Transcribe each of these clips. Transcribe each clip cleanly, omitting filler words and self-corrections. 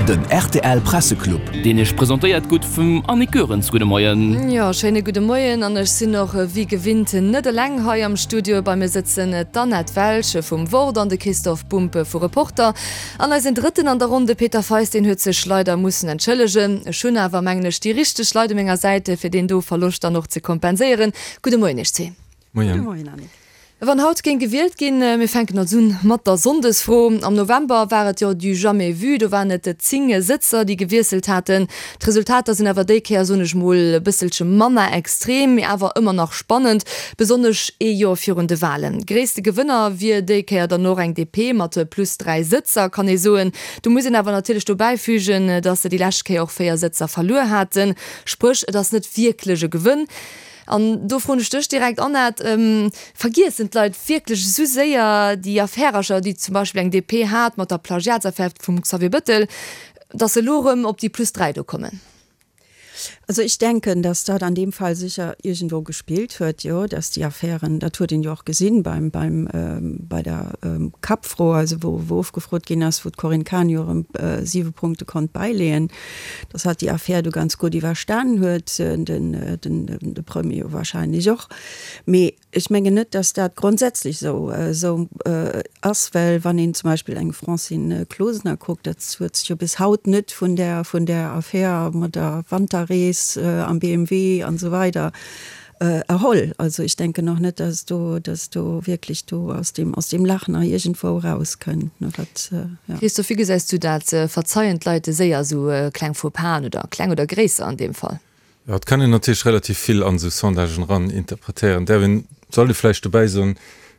Den rtl Presseclub. Deen Iech presentéiert gutt vum Annick Goerens. Gudde Moien. Jo, schéine gudde Moien an ech sinn och wéi gewinnt net eleng hei am Studio. Bei mir sëtzen d'Annette Welsch vum Wort an de Christoph Bumpe vu Reporter. An eisen Drëtten an der Ronn, de Peter Feist, deen huet sech leider mussen entschëllegen. Ech hunn awer, mengen ech, déi richteg Leit u menger Säit, fir deen do Verloscht dann och ze kompenséieren. Gudde Moien Iech zwee. Moien. Gudde Moien, Annick. Wann haut géing gewielt ginn, mir fänken also un mat der Sonndesfro. Am November war et jo du jamais vu, do waren et 10 Sëtzer, déi gewiesselt haten. D'Resultater sinn awer déi Kéier, soen ech mol, e bësselche manner extrem, mee awer ëmmer nach spannend, besonnesch ee Joer virun de Walen. Gréisste Gewënner wier déi Kéier dann och eng DP mat plus 3 Sëtzer, kann ee soen. Do muss een awer natierlech dobäi fügen, datt se déi lescht Kéier och 4 Sëtzer verluer haten. Spréch, et ass net wierklech e Gewënn. An do froen ech dech direkt, Annette, Vergiessen d'Leit wierklech esou séier déi Affärercher, déi zum Beispill eng DP hat mat der Plagiatsaffär vum Xavier Bëttel, datt se elo erëm op déi plus 3 do kommen? Also ech denken, datt dat an deem Fall sécher iergendwou gespillt huet, jo, datt déi Affären, dat huet een jo och gesinn beim, beim, bei der Kappfro, also wou, wou ofgefrot ginn ass, wou d'Corinne Cahen jo erëm siwe Punkte konnt bäileeën, dass hatt déi Affär do ganz gutt iwwerstanen huet, de Premier jo wahrscheinlech och. Mee ech mengen net, dass dat grondsätzlech esou esou ass, well wann een zum Beispill eng Francine Closener kuckt, dat huet sech jo bis haut net vun där vun där Affär mat der Wanterrees am BMW an esou weider Erholl. Also ech denken och net, dass do, dass do wierklech do aus deem, aus deem Lach nach iergendwou erauskënnt, ne, wat, ja. Christophe, wéi gesäis du dat? Verzeien d'Leit séier esou kleng Faux-pasen oder kleng oder gréisser an deem Fall? Jo, et kann een natierlech relativ vill an esou Sondagen eran interpretéieren. Däerf een, sollt ee vläicht dobäi soen,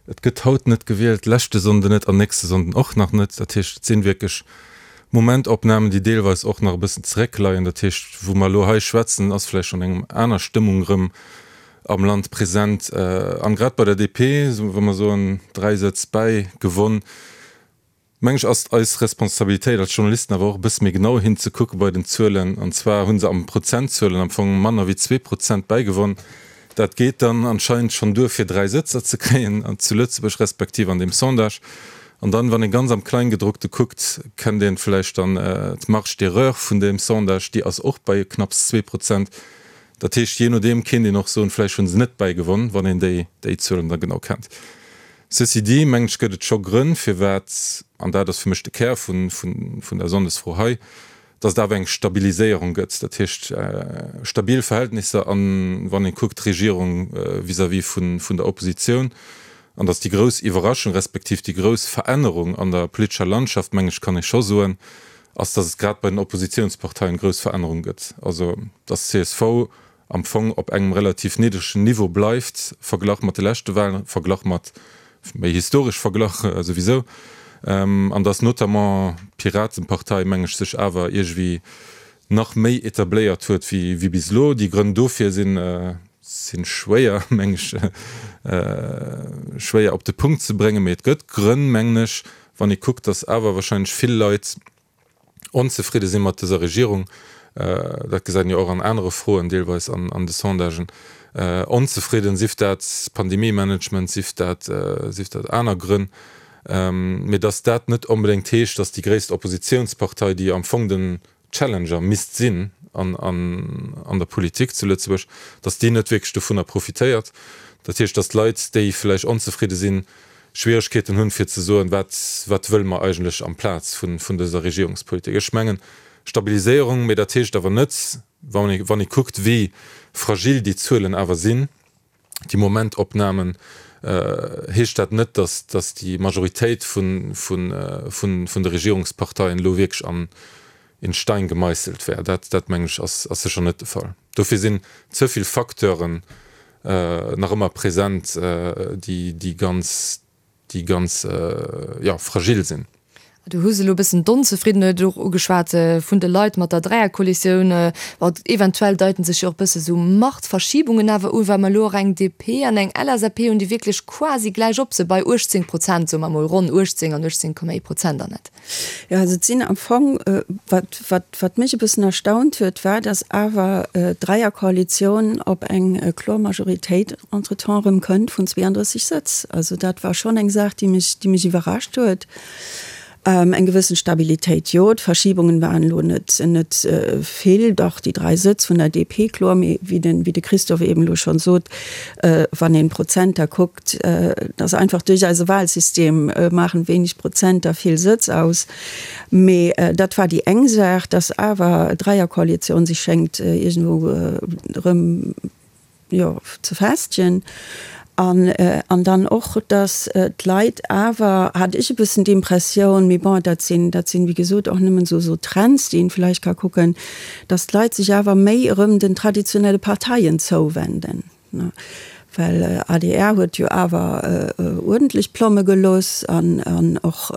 et gëtt haut net gewielt, leschte Sonnden net an nächste Sonnden och nach net. Dat heescht, et sinn wierklech Momentopnamen, déi deelweis och nach e bëssen zeréckleien. Dat heescht, wou mer elo hei schwätzen, ass vläicht schonn eng aner Stëmmung erëm am Land present. An grad bei der DP, wa mer soen, 3 Sëtz bäi gewonn, meng ech, ass et eis Responsabilitéit als Journalisten awer och e bësse méi genau hinzekucke bei den Zuelen. An zwar hu se am Prozentzuelen am Fong manner wéi 2 Prozent bäigewonn. Dat geet dann anscheinend schonn duer fir 3 Sëtzer ze kréien zu Lëtzebuerg, respektiv an deem Sondage. An dann, wann ee ganz am Kleingedruckte kuckt, kennt een vläicht dann d'Marge d'erreur vun deem Sondage, déi ass och bei knapps 2%. Dat heescht, jee nodeem kéint een och soen, vläicht hu se net bäigewonn, wann een déi déi Zuelen da genau kennt. Ceci dit, mengen ech, gëtt et scho Grënn, firwat, an dat ass fir mech de Kär vun vun der Sonndesfro hei, datt et awer eng Stabiliséierung gëtt, dat heescht stabil Verhältnisser an, wann ee kuckt, d'Regierung vis-à-vis vun der Oppositioun, an datt déi grouss Iwwerraschung respektiv déi grouss Verännerung an der politescher Landschaft, meng ech, kann ee scho soen, ass, datt et grad bei den Oppositionsparteien grouss Verännerung gëtt, also datt csv am Fong op engem relativ niddregen Niveau bleift, verglach mat de leschte Wahlen, verglach mat, méi historesch verglach souwisou, an datt notamment d'Piratenpartei, meng ech, sech awer iergendwéi nach méi etabléiert huet wéi bis elo. Déi Grënn dofir sinn, si schwéier, meng ech, schwéier op de Punkt ze bréngen, mee et gëtt Grënn, mengen ech, wann ee kuckt, datt awer wahrscheinlech vill Leit, onzefridde si mat dëser Regierung, dat gesäit een jo och an anere Froen deelweis an de Sondagen, onzefridden, sief dat Pandemie-Management, sief dat, sief dat aner Grënn, mee datt dat net onbedéngt heescht, datt déi gréisst Oppositionspartei, déi am Fong den Challenger misst sinn an der Politik zu Lëtzebuerg, datt déi net wierklech dovunner profitéiert. Dat heescht, datt d'Leit, déi vläicht onzefridde sinn, Schwieregkeeten hunn, fir ze soen, wat, wat wëlle mer eigentlech amplaz vun, vun dëser Regierungspolitik. Ech mengen, Stabiliséierung, mee dat heescht awer net, wann ee, wann ee kuckt, wéi fragil déi Zuelen awer sinn, déi Momentopnamen, heescht dat net, dass, dass déi Majoritéit vun, vun, vun, vun de Regierungsparteien elo wierklech an in Stein gemeisselt wär. Dat, dat mengen ech, ass, ass sécher net de Fall. Dofir sinn ze vill Facteuren nach ëmmer present, déi, déi ganz, déi ganz, jo, fragil sinn. Du hues elo e bëssen d'Onzefriddenheet och ugeschwat vun de Leit mat der Dräierkoalitioun. Bon, eventuell deiten sech jo och e bësse sou Machtverschiebungen awer un, well mer elo och eng DP an eng LSAP hunn, déi wierklech quasi gläich op se bei 18 Prozent, soe mer emol ronn 18 an 18,1 Prozent, Annette. Jo, also et sinn am Fong, wat, wat, wat mech e bëssen erstaunt huet, war, datt awer d'Dräierkoalitioun op eng kloer Majoritéit entretemps erëm kënnt vun 32 Sëtz. Also dat war schonn eng Saach, déi mech, déi mech iwwerrascht huet. Eng gewëssen Stabilitéit, jo. D'Verschiebungen waren elo net, net vill. Dach, déi 3 Sëtz vun der DP, kloer. Mee wéi den, wéi de Christophe eben elo schonn sot, wann een d'Prozenter kuckt, dass einfach duerch eise Wahlsystem maachen wéineg Prozenter vill Sëtz aus. Mee dat war déi eng Saach, dass awer d'Dräierkoalitioun sech schéngt iergendwou erëm, jo, ze festegen. An, an dann och, dass d'Leit awer, hat ech e bëssen d'Impressioun, mee bon, dat sinn, dat sinn, wéi gesot, och nëmmen esou, esou Trends, déi een vläicht ka kucken, dass d'Leit sech awer méi erëm den traditionelle Parteien zouwenden. Well adr huet jo awer uerdentlech Plomme gelooss an, an och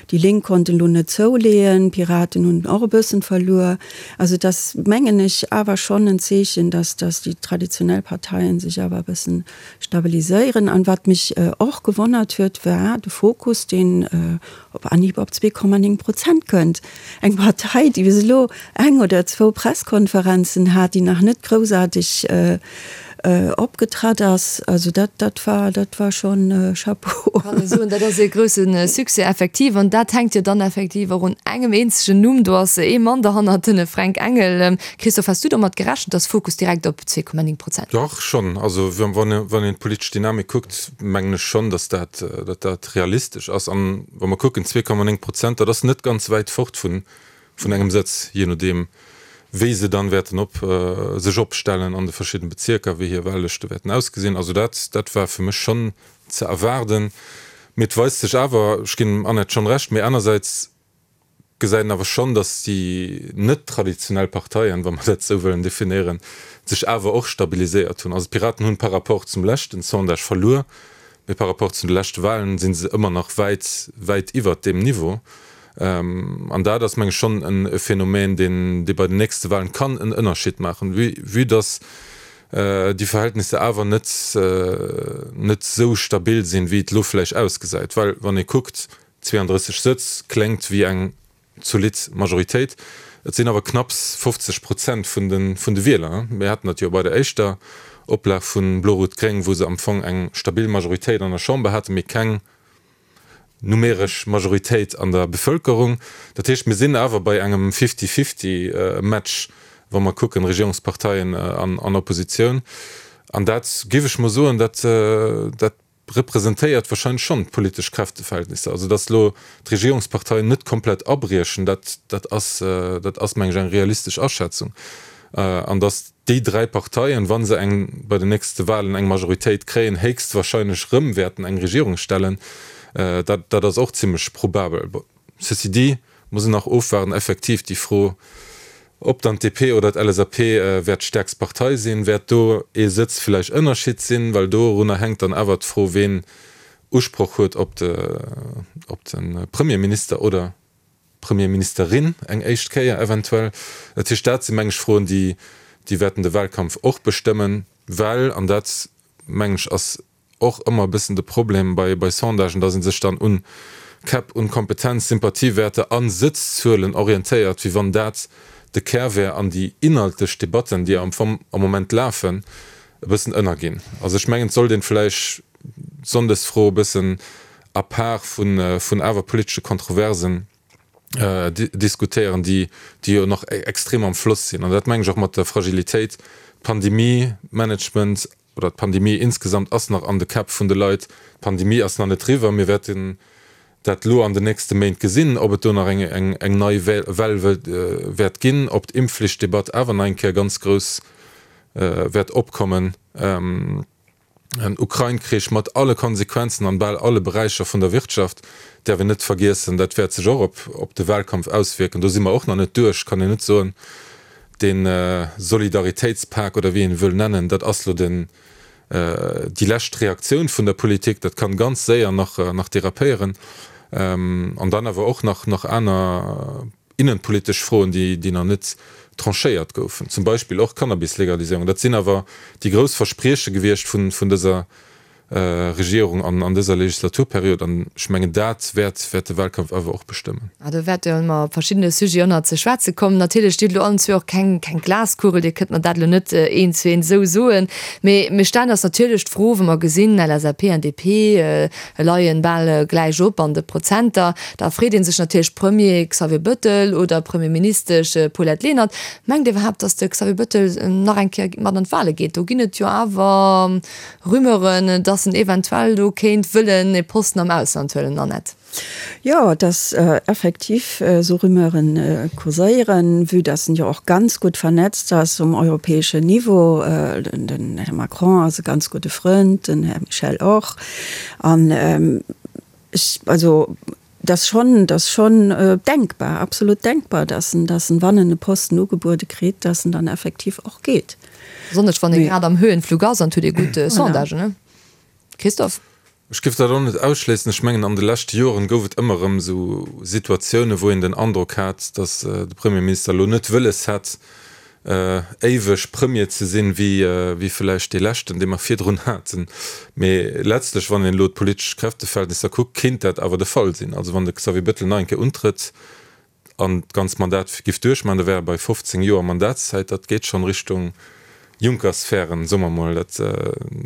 déi Lénk konnten elo net zouleeën, d'Piraten hunn och e bëssen verluer. Also et ass, mengen ech, awer schonn en Zeechen, dass dass déi traditionell Parteien sech awer e bëssen stabiliséieren. An wat mech och gewonnert huet, war de Fokus, deen op Anhieb op 2,9 Prozent kënnt. Eng Partei, déi bis elo eng oder zwou Presskonferenzen hat, déi nach net groussaarteg opgetratt ass. Also dat, dat war, dat war schonn Chapeau. Kann ee soen, dat ass ee grousse Succès effektiv. An dat hänkt jo dann effektiv och un engem eenzegen Numm. Do ass ee Mann derhannert, den Fränk Engel. Christophe, has du domat gerechent, datt Fokus direkt op 2,9 Prozent? Dach, schonn. Also wann een d'politesch Dynamik kuckt, mengen ech schonn, datt dat, datt dat realistesch ass. An wa mer kucken, 2,9 Prozent, dat ass net ganz wäit fort vun, vun engem Sëtz, jee nodeem wéi se dann wäerten op, sech opstellen an de verschidden Bezierker, wéi hir Wahllëschte wäerten ausgesinn. Also dat, dat war fir mech schonn ze erwaarden. Mee et weist sech awer, ech ginn dem Annette schonn Recht, mee anersäits gesäit een awer schonn, datt déi net traditionell Parteien, wa mer dat esou wëllen definéieren, sech awer och stabiliséiert hunn. Also d'Piraten hunn par rapport zum leschten Sondage verluer, mee par rapport zu de leschte Wahlen si se ëmmer nach wäit, wäit iwwert deem Niveau. An dat ass, meng ech, schonn e Phänomen, deen, dee bei den nächste Wahlen kann en Ënnerschied maachen, vue, vue datt déi Verhältnisser awer net, net esou stabil sinn, wéi et elo vläicht ausgesäit. Well wann ee kuckt, 32 Sëtz kléngt wéi eng zolidd Majoritéit. Et sinn awer knapps 50 Prozent vun de vun de Wieler. Mir haten dat jo bei der éischter Oplag vu Blo-Rot-Gréng, wou se am Fong eng stabil Majoritéit an der Chamber haten, mee keng numeresch Majoritéit an der Bevëlkerung. Dat heescht, mir sinn awer bei engem Fifty-Fifty-Match, wa mer kucken, Regierungsparteien an Oppositioun. An dat, géif ech mol soen, dat dat representéiert wahrscheinlech schonn d'politesch Kräfteverhältnisser. Also datt elo d'Regierungsparteien net komplett abriechen, dat dat ass dat ass meng ech eng realistesch Aschätzung. An datt déi 3 Parteien, wa se eng bei den nächste Wahlen eng Majoritéit kréien, héchstwahrscheinlech rëm wäerten eng Regierung stellen, dat dat ass och zimlech probabel. Ceci dit muss een nach ofwaarden, effektiv déi Fro, ob dann d'DP oder d'LSAP wäert d'stäerkst Partei sinn, wäert do ee Sëtz vläicht Ënnerschied sinn, well dorunner hänkt dann awer d'Fro, ween Usproch huet op de op de Premierminister oder Premierministerin eng éischt Kéier eventuell. Dat heescht, dat si meng ech Froen, déi déi wäerten de Wahlkampf och bestëmmen, well, an dat meng ech ass och ëmmer e bëssen de Problem bei bei Sondagen, datt ee sech dann un Käpp, un Kompetenz, Sympathiewäerter a Sëtzzuelen orientéiert, wéi wann dat de Kär wär an déi inhaltlech Debatten, déi am Fong am Moment lafen, e bëssen ënnerginn. Also ech mengen, et sollt een vläicht d'Sonndesfro e bëssen à part vun vun awer politesche Kontroversen diskutéieren, déi déi jo nach extrem am Floss sinn. An dat mengen ech och mat der Fragilitéit, Pandemie, Management oder d'Pandemie insgesamt ass nach an de Käpp vun de Leit. D'Pandemie ass nach net eriwwer. Mir wäerten dat elo an den nächste Méint gesinn, ob et do nach eng eng eng nei Well wäert ginn, ob d'Impfflichtdebatt awer nach eng Kéier ganz grouss wäert opkommen. En Ukrain-Krich mat alle Konsequenzen an bal alle Beräicher vun der Wirtschaft däerf een net vergiessen. Dat wäert sech och op de Wahlkampf auswierken. Do si mer och nach net duerch, kann een net soen. Dee Solidaritéitspak oder wéi een e wëll nennen, dat ass lo den, déi lescht Reaktioun vun der Politik. Dat kann ganz séier nach, nach derapéieren. An dann awer och nach, nach aner innenpolitesch Froen, déi, déi nach net tranchéiert goufen. Zum Beispill och d'Cannabis-Legaliséierung. Dat sinn awer déi grouss Versprieche gewiescht vun, vun dëser. Regierung an an dëser Legislaturperiod. An ech mengen, dat wäert wäert de Wahlkampf awer och bestëmmen. Ah, do wäerte mer op verschiddene Sujeten och nach ze schwätze kommen. Natierlech, Dir hutt elo allen zwee och keng keng Glaskugel, Dir kënnt mer dat elo net eent zu eent esou soen. Mee mir stellen eis natierlech d'Fro, wa mer gesinn, LSAP an DP leien bal gläich op an de Prozenter, da freet ee sech natierlech, Premier Xavier Bëttel oder Premierministesch Paulette Lenert, mengt Dir iwwerhaapt, datt de Xavier Bëttel nach eng Kéier mat an d'Wahle geet? Do ginn et jo awer Rumeuren, datt en eventuell do kéint wëllen e Posten am Ausland huelen, Annette. Jo, dass effektiv esou Rumeuren kurséieren, vue dass en jo och ganz gutt vernetzt ass um europäeschen Niveau. Den Här Macron ass e ganz gudde Frënd, den Här Michel och. An ech, also et ass schonn, et ass schonn denkbar, absolut denkbar, dass en, dass en, wann en e Posten ugebuede kritt, dass en dann effektiv och geet. Besonnesch wann ee grad am Höhenflug ass an et huet ee gutt Sondagen, ne Christophe? Ech géif dat och net ausschléissen. Ech mengen, an de leschte Joren gouf et ëmmer erëm esou Situatiounen, wou een den Androck hat, datt de Premierminister elo net wëlles hätt, éiweg Premier ze sinn, wéi vläicht dee leschten, dee mer virdrun haten. Mee letztlech, wann een elo d'politesch Kräfteverhältnisser kuckt, kéint dat awer de Fall sinn. Also wann de Xavier Bettel nach eng Kéier untrëtt, an d'ganzt Mandat giff duerchmachen, da wär e bei 15 Joer Mandatszäit. Dat geet schonn Richtung Juncker-Sphären, soe mer mol. Dat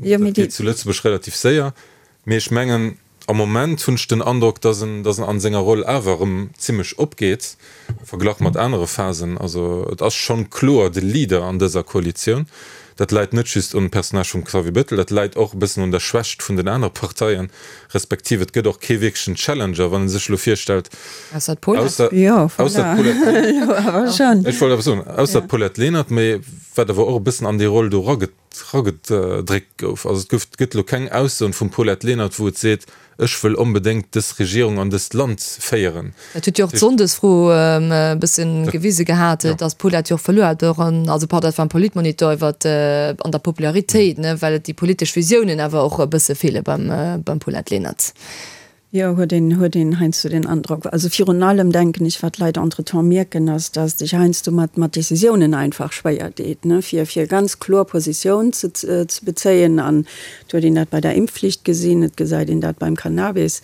geet zu Lëtzebuerg relativ séier. Mee ech mengen, am Moment hunn ech den Androck, datt en, datt en an senger Roll awer erëm zimmlech opgeet, verglach mat anere Phasen. Also et ass schonn kloer de Leader an dëser Koalitioun. Dat läit net just un Personnage vum Xavier Bettel, dat läit och e bëssen un der Schwächt vun den anere Parteien, respektiv et gëtt och kee wierklechen Challenger, wann ee sech elo virstellt, Ausser d'Paulette. Ausser d'Paulette Lenert, ech wollt awer soen, ausser d'Paulette Lenert, mee wat awer och e bëssen an déi Roll do eragedréckt gouf. Also et gouf, gëtt elo keng Aussoen vum Paulette Lenert, wou et seet, Ech wëll onbedéngt dës Regierung an dëst Land féieren. Dat huet jo och d'Sonndesfro e bësse gewise gehat, datt d'Paulette jo och verluer hat, och an, also pardon, dat war am Politmonitor iwwer an der Popularitéit, ne, well et déi politesch Visiounen awer och e bësse feele beim, beim Paulette Lenert. Jo, huet een, huet een heiansdo den Androck. Also virun allem denken ech, wat d'Leit entretemps mierken, ass, datt sech heiansdo mat, mat Décisiounen einfach schwéier deet, ne, fir, fir ganz kloer Positioun ze, ze bezéien an Et huet een dat bei der Impfflicht gesinn, et gesäit een dat beim Cannabis,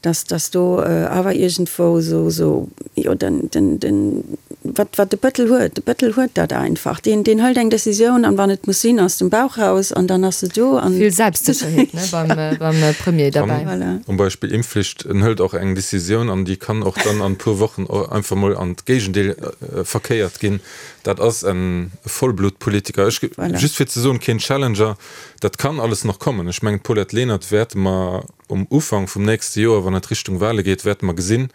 dass, dass do awer iergendwou esou, esou, jo, den, den, den, wat, wat de Bëttel huet, de Bëttel huet dat einfach. Deen, deen hëlt eng Décisioun an wann et muss sinn, aus dem Bauch raus an dann ass se do an. Vill Selbstsécherheet, ne, beim, beim Premier derbäi. Voilà. Um Beispill Impfflicht, en hëlt och eng Décisioun an déi kann och dann an e puer Wochen einfach mol an d'Géigendeel verkéiert ginn. Dat ass e Vollblutpolitiker. Ech, just fir ze soen, keen Challenger. Dat kann alles nach kommen. Ech mengen, d'Paulette Lenert wäerte mer um Ufank vum nächste Joer, wann et Richtung Wahle geet, wäerte mer gesinn,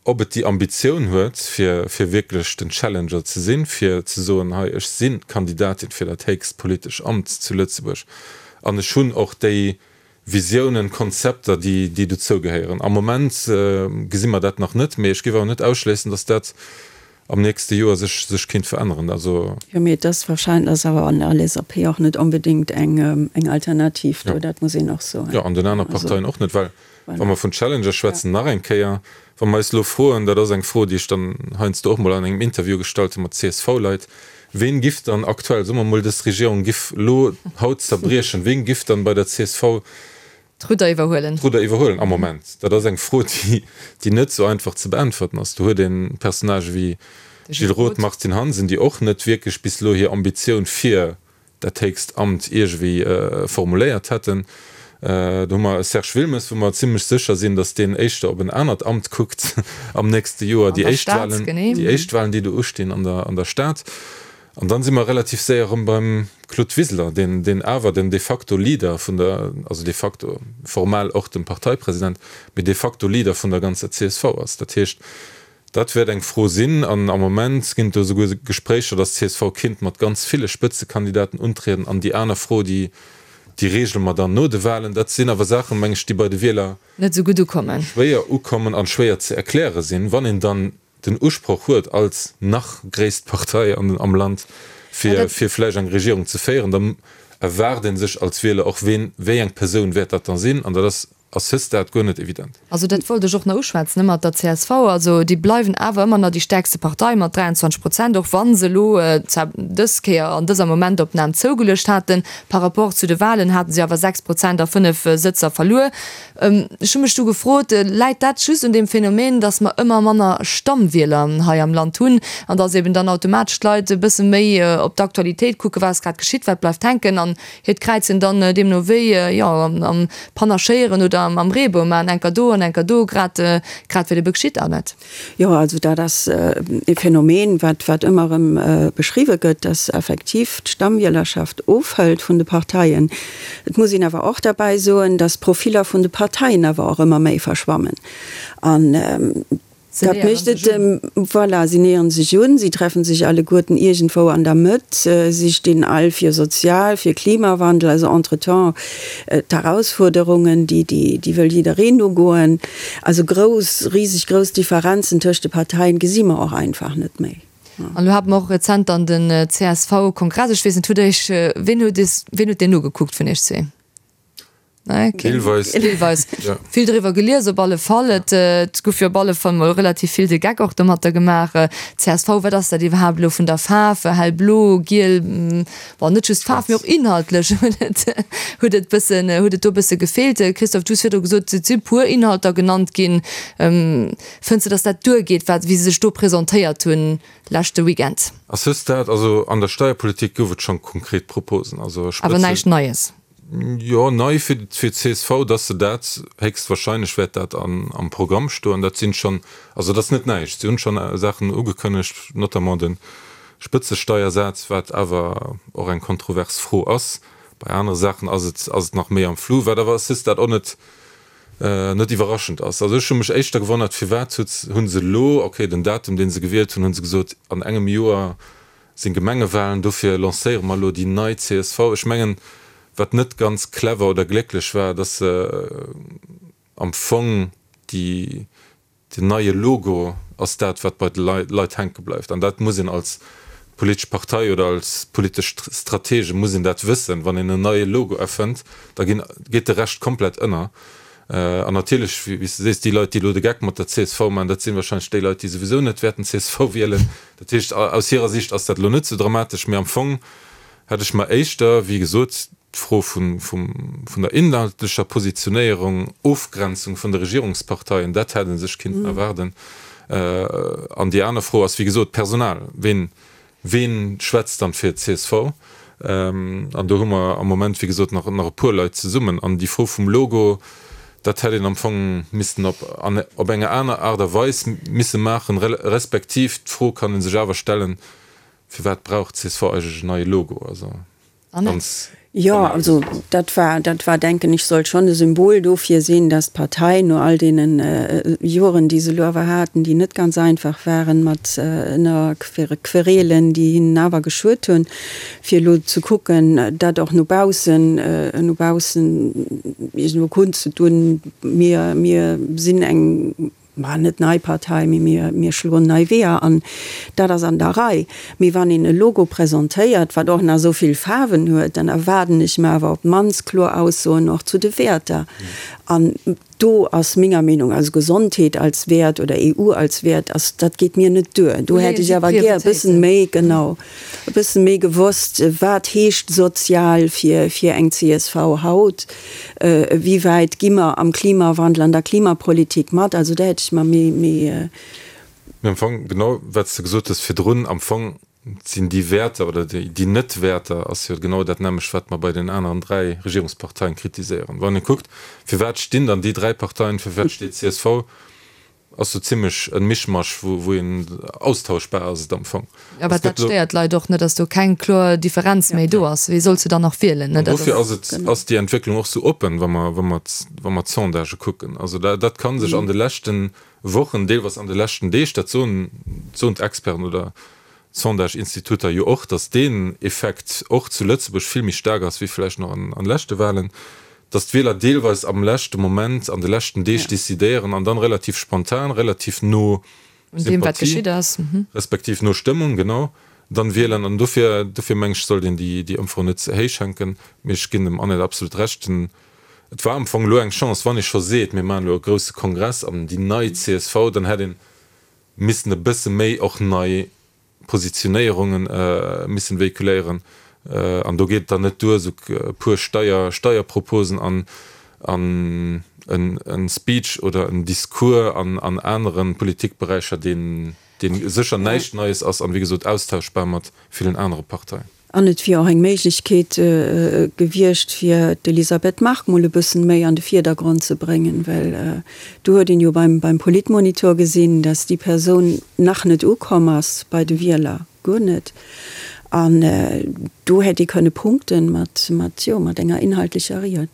ob et déi Ambitioun huet, fir, fir wierklech den Challenger ze sinn, fir ze soen, hei, ech si Kandidatin fir dat héchst politesch Amt zu Lëtzebuerg an ech hunn och déi Visiounen, Konzepter, déi, déi dozou gehéieren. Am Moment gesi mer dat nach net, mee ech géif awer net ausschléissen, datt dat am nächste Joer sech, sech kéint veränneren. Also. Jo, mee et ass wahrscheinlech, ass awer an der LSAP och net onbedéngt eng, eng Alternativ do, dat muss een och soen. Jo, an den aner Parteien och net, well wa mer vun Challenger schwätzen, nach eng Kéier, wa mer eis elo froen, dat ass eng Fro, déi ech dann heiansdo och mol an engem Interview gestallt hu mat CSV-Leit, Ween giff dann aktuell, soe mer mol dës Regierung giff lo haut zerbriechen, ween giff dann bei der csv D'Rudder iwwerhuelen? D'Rudder iwwerhuelen am Moment? Dat ass eng Fro, déi déi net sou einfach ze beäntwerten ass. Do huet een Personnagë wéi Gilles Roth, Martine Hansen, déi och net wierklech bis elo hir Ambitioun fir dat héchst Amt iergewéi formuléiert hätten. Do hu mer e Serge Wilmes, wou mer zimlech sécher sinn, datt deen éischter op en anert Amt kuckt am nächste Joer, déi éischt Wahlen, déi éischt Wahlen, déi do ustinn an der, an der Stad. An dann si mer relativ séier erëm beim Claude Wiseler, deen, deen awer den de facto Leader vun der, also de facto, formal och dem Parteipresident, mee de facto Leader vun der ganzer csv ass. Dat heescht, Dat wäert eng Fro sinn. An am Moment ginn et do esouguer Gespréicher, datt d'CSV kinnt mat ganz ville Spëtzekandidaten untrieden. An déi aner Fro, déi, déi reegele mer dann no de Wahlen. Dat sinn awer Saachen, meng ech, déi bei de Wieler Net esou gutt ukommen. schwéier ukommen an schwéier ze erkläre sinn, wann een dann den Usproch huet, als nach gréisst Partei an, am Land, fir, fir vläicht eng Regierung ze féieren. Da erwaart ee sech als Wieler och, ween, wéi eng Persoun wäert dat dann sinn. An dat ass. à ce stade guer net evident. Also dat wollt ech och nach uschwätzen, ne, mat der csv. Also déi bleiwen awer ëmmer nach déi stäerkste Partei mat 23 Prozent, och wa se elo zwar dës Kéier an dëser Momentopnam zougeluecht haten. Par rapport zu de Wahlen hate se awer 6 Prozent a 5 Sëtzer verluer. Ech hu mech du gefrot, läit dat just un deem Phänomen, datt mer ëmmer manner Stammwieler hei am Land hunn an datt eben dann automatesch d'Leit e bësse méi op d'Aktualitéit kucken, wat ass grad geschitt, wat bleift hänken an hiert Kräizen dann deemno wéi, jo, am Panaschéieren oder am Reebou maachen, enker do an enker do, grad grad wat ebe geschitt, Annette? Jo, also dat ass e Phänomen, wat wat ëmmer erëm beschriwwe gëtt, dass effektiv d'Stammwielerschaft ofhëlt vun de Parteien. Et muss een awer och derbäi soen, dass d'Profiller vun de Parteien awer och ëmmer méi verschwammen an dat mécht et, voilà, si näheren sech un, si treffen sech alleguerten iergendwou an der Mëtt, si stinn all fir sozial, fir Klimawandel, also entretemps d'Herausfuerderungen, déi déi wëll jiddereen ugoen. Also grouss, riseg grouss Differenzen tëscht de Parteien gesi mer och einfach net méi. An elo hate mer och rezent dann den CSV-Kongress. Ech weess net, hutt Der Iech, ween huet es, ween huet deen nogekuckt vun Iech zwee? Nee, keen? Deelweis. Deelweis. Ja. Vill driwwer gelies op alle Fall. Et, et gouf jo op alle Fall mol relativ vill de Geck och domatter gemaach. Csv, wat ass dat iwwerhaapt elo vun der Faarf? Hellblo, giel, Bon, net just Faarf, mee och inhaltlech huet et, huet et bëssen, huet et do e bësse gefeelt. Christophe, du hues virdru gesot, et si puer Inhalter genannt ginn. Fënns de, datt dat duergeet, wat, wéi se sech do presentéiert hunn leschte Weekend? À ce stade, also an der Steierpolitik gouf et schonn konkret Proposen, also Awer Spëtze. näischt Neies? Jo, nei fir d'CSV, dass se dat, héchstwahrscheinlech wäert dat am Programm stoen, dat sinn schonn, also dat ass net näischt, si hunn schonn Saachen ugekënnegt, notamment de Spëtzesteiersaz, wat awer och eng kontrovers Fro ass. Bei anere Saachen ass et ass et nach méi am Flou, wat awer à ce stade och net net iwwerraschend ass. Also ech hu mech éischter gewonnert, firwat huet hu se elo, okay, den Datum dee se gewielt hunn, hu se gesot, an engem Joer sinn Gemengewahlen, dofir lancéiere mer elo déi nei csv. Ech mengen, wat net ganz clever oder glécklech war, dass se am Fong déi, den neie Logo ass dat, wat bei de Leit hänke bleift. An dat muss een als politesch Partei oder als politesch Stratege muss een dat wëssen, wann een en neie Logo erfënnt, da ginn, geet de Rescht komplett ënner. An natierlech, wéi s de sees, déi Leit, déi elo de Geck mat der csv maachen, dat sinn wahrscheinlech déi Leit, déi souwisou net wäerten csv wielen. Dat heescht, aus hirer Sicht ass dat elo net esou dramatesch, mee am Fong hätt ech mer éischter, wéi gesot, d'Fro vun der inhaltlecher Positionéierung, Ofgrenzung vun de Regierungsparteien, dat hätt ee sech kinnten erwaarden. An déi aner Fro ass, wéi gesot, d'Personal. Ween, ween schwätzt dann fir d'CSV? An do hu mer am Moment, wéi gesot, nach e puer Leit zesummen. An déi Fro vum Logo, dat hätt een am Fong missten op op enger aner Aart a Weis misse maachen, respektiv d'Fro kann ee sech awer stellen, Firwat brauch d'CSV eigentlech en neie Logo? Also ganz Jo, also dat war, dat war, denken ech, sollt schonn e Symbol dofir sinn, dass d'Partei no all deene Joren, déi se elo awer haten, déi net ganz einfach waren, mat ënner Querelen, déi hinnen awer geschuet hunn, fir elo ze kucken, dat och no baussen, no baussen iergendwou kundzedun, mir, mir sinn eng, ma net nei Partei, mee mir, mir schloen nei Weeër an. Dat ass an der Rei. Mee wann een e Logo presentéiert, wat och nach esou vill Faarwen huet, dann erwaarden ech mer awer op d'mannst kloer Aussoen och zu de Wäerter. An do ass menger Meenung, also Gesondheet als Wäert oder EU als Wäert, ass, dat geet mir net duer. Do hätt ech awer gär e bëssen méi, genau, e bëssen méi gewosst, wat heescht sozial fir, fir eng csv haut. Wéi wäit gi mer am Klimawandel, an der Klimapolitik mat? Also do hätt ech mer méi, méi. Mee am Fong, genau wat s de gesot hues virdrun, am Fong sinn déi Wäerter oder déi Net-Wäerter ass jo genau dat nämmlecht, wat mer bei den aneren 3 Regierungsparteien kritiséieren. Wann ee kuckt, firwat stinn dann déi 3 Parteien, firwat steet csv, Ass sou zimlech en Mischmasch wou een austauschbar ass et am Fong. Awer dat stéiert d'Leit och net, dass do keng kloer Differenz méi do ass. Wee solls de dann nach wielen? An dofir ass et, ass déi Entwécklung och sou oppen, wa mer, wa mer, wa mer d'Sondagë kucken. Also dat ka sech an de leschte Wochen, deelweis an de leschten Deeg, dat soen, soen d'Experten oder d'Sondage-Instituter jo och, dass deen Effekt och zu Lëtzebuerg vill méi staark ass wéi vläicht nach an leschte Wahlen. dass d'Wieler deelweis am leschte Moment, an de leschten Deeg decidéieren an dann relativ spontan, relativ no Sympathie, respektiv no Stëmmung, genau, dann wielen. An dofir, dofir meng ech, sollt een déi, déi Ëmfro net ze héich hänken. Mee ech ginn dem Annette absolut Recht, den. Et war am Fong elo eng Chance, wann ee scho seet, mir maachen elo e grousse Kongress an déi nei csv, dann hätt ee missen e bësse méi och nei Positionéierunge missen véhiculéieren. An do geet et dann net duer, esou e puer Steier, Steierproposen an an en Speech oder en Discours an an anere Politikberäicher, deen dee sécher näischt Neies ass an, wéi gesot, austauschbar mat villen anere Parteien. An et wier och eng Méiglechkeet gewiescht, fir d'Elisabeth Margue mol e bëssen méi an de Vierdergrond ze bréngen, well do huet een jo beim beim Politmonitor gesinn, dass déi Persoun nach net ukomm ass bei de Wieler, guer net. An do hätt ee kënne punkten mat, mat, jo, mat enger inhaltlecher Ried.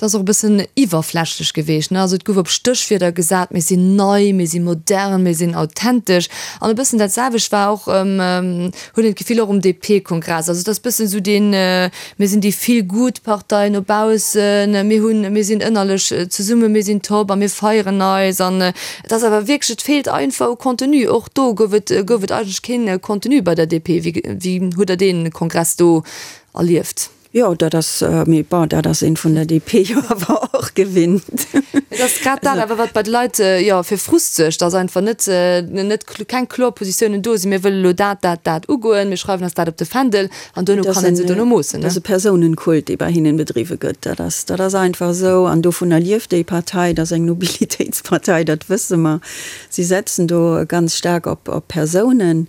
Et ass och e bëssen iwwerflächlech geweecht, ne? Also et gouf op Stéchwierder gesat, mir sinn nei, mir si modern, mir sinn authentesch. An e bëssen dat selwecht war och, huet een d'Gefill, och um DP-Kongress. Also et ass bëssen esou deen, mir sinn déi Feel-Good-Partei no baussen, mir hunn, mir sinn ënnerlech zesummen, mir sinn top a mir feieren eis. An et ass awer wierklech, et feelt einfach u Contenu. Och do gouf et, gouf et eigentlech keen Contenu bei der DP. Wéi, wéi hutt Der dee Kongress do erlieft? Jo, dat ass, mee bon, dat ass een vun der DP jo awer och gewinnt. Et ass grad dat awer, wat bei de Leit, jo, fir Frust suergt, dass einfach net, net, keng kloer Positiounen do sinn, mir wëlle lo dat, dat, dat ugoen, mir schreiwen eis dat op de Fändel an duerno kann ee se duerno moossen. Dat ass e Persounenkult, dee bei hinnen bedriwwe gëtt. Dat ass, dat ass einfach esou an dovunner lieft déi Partei. Dat ass eng Nobilitéitspartei, dat wësse mer. Si setzen do ganz staark op, op Persounen.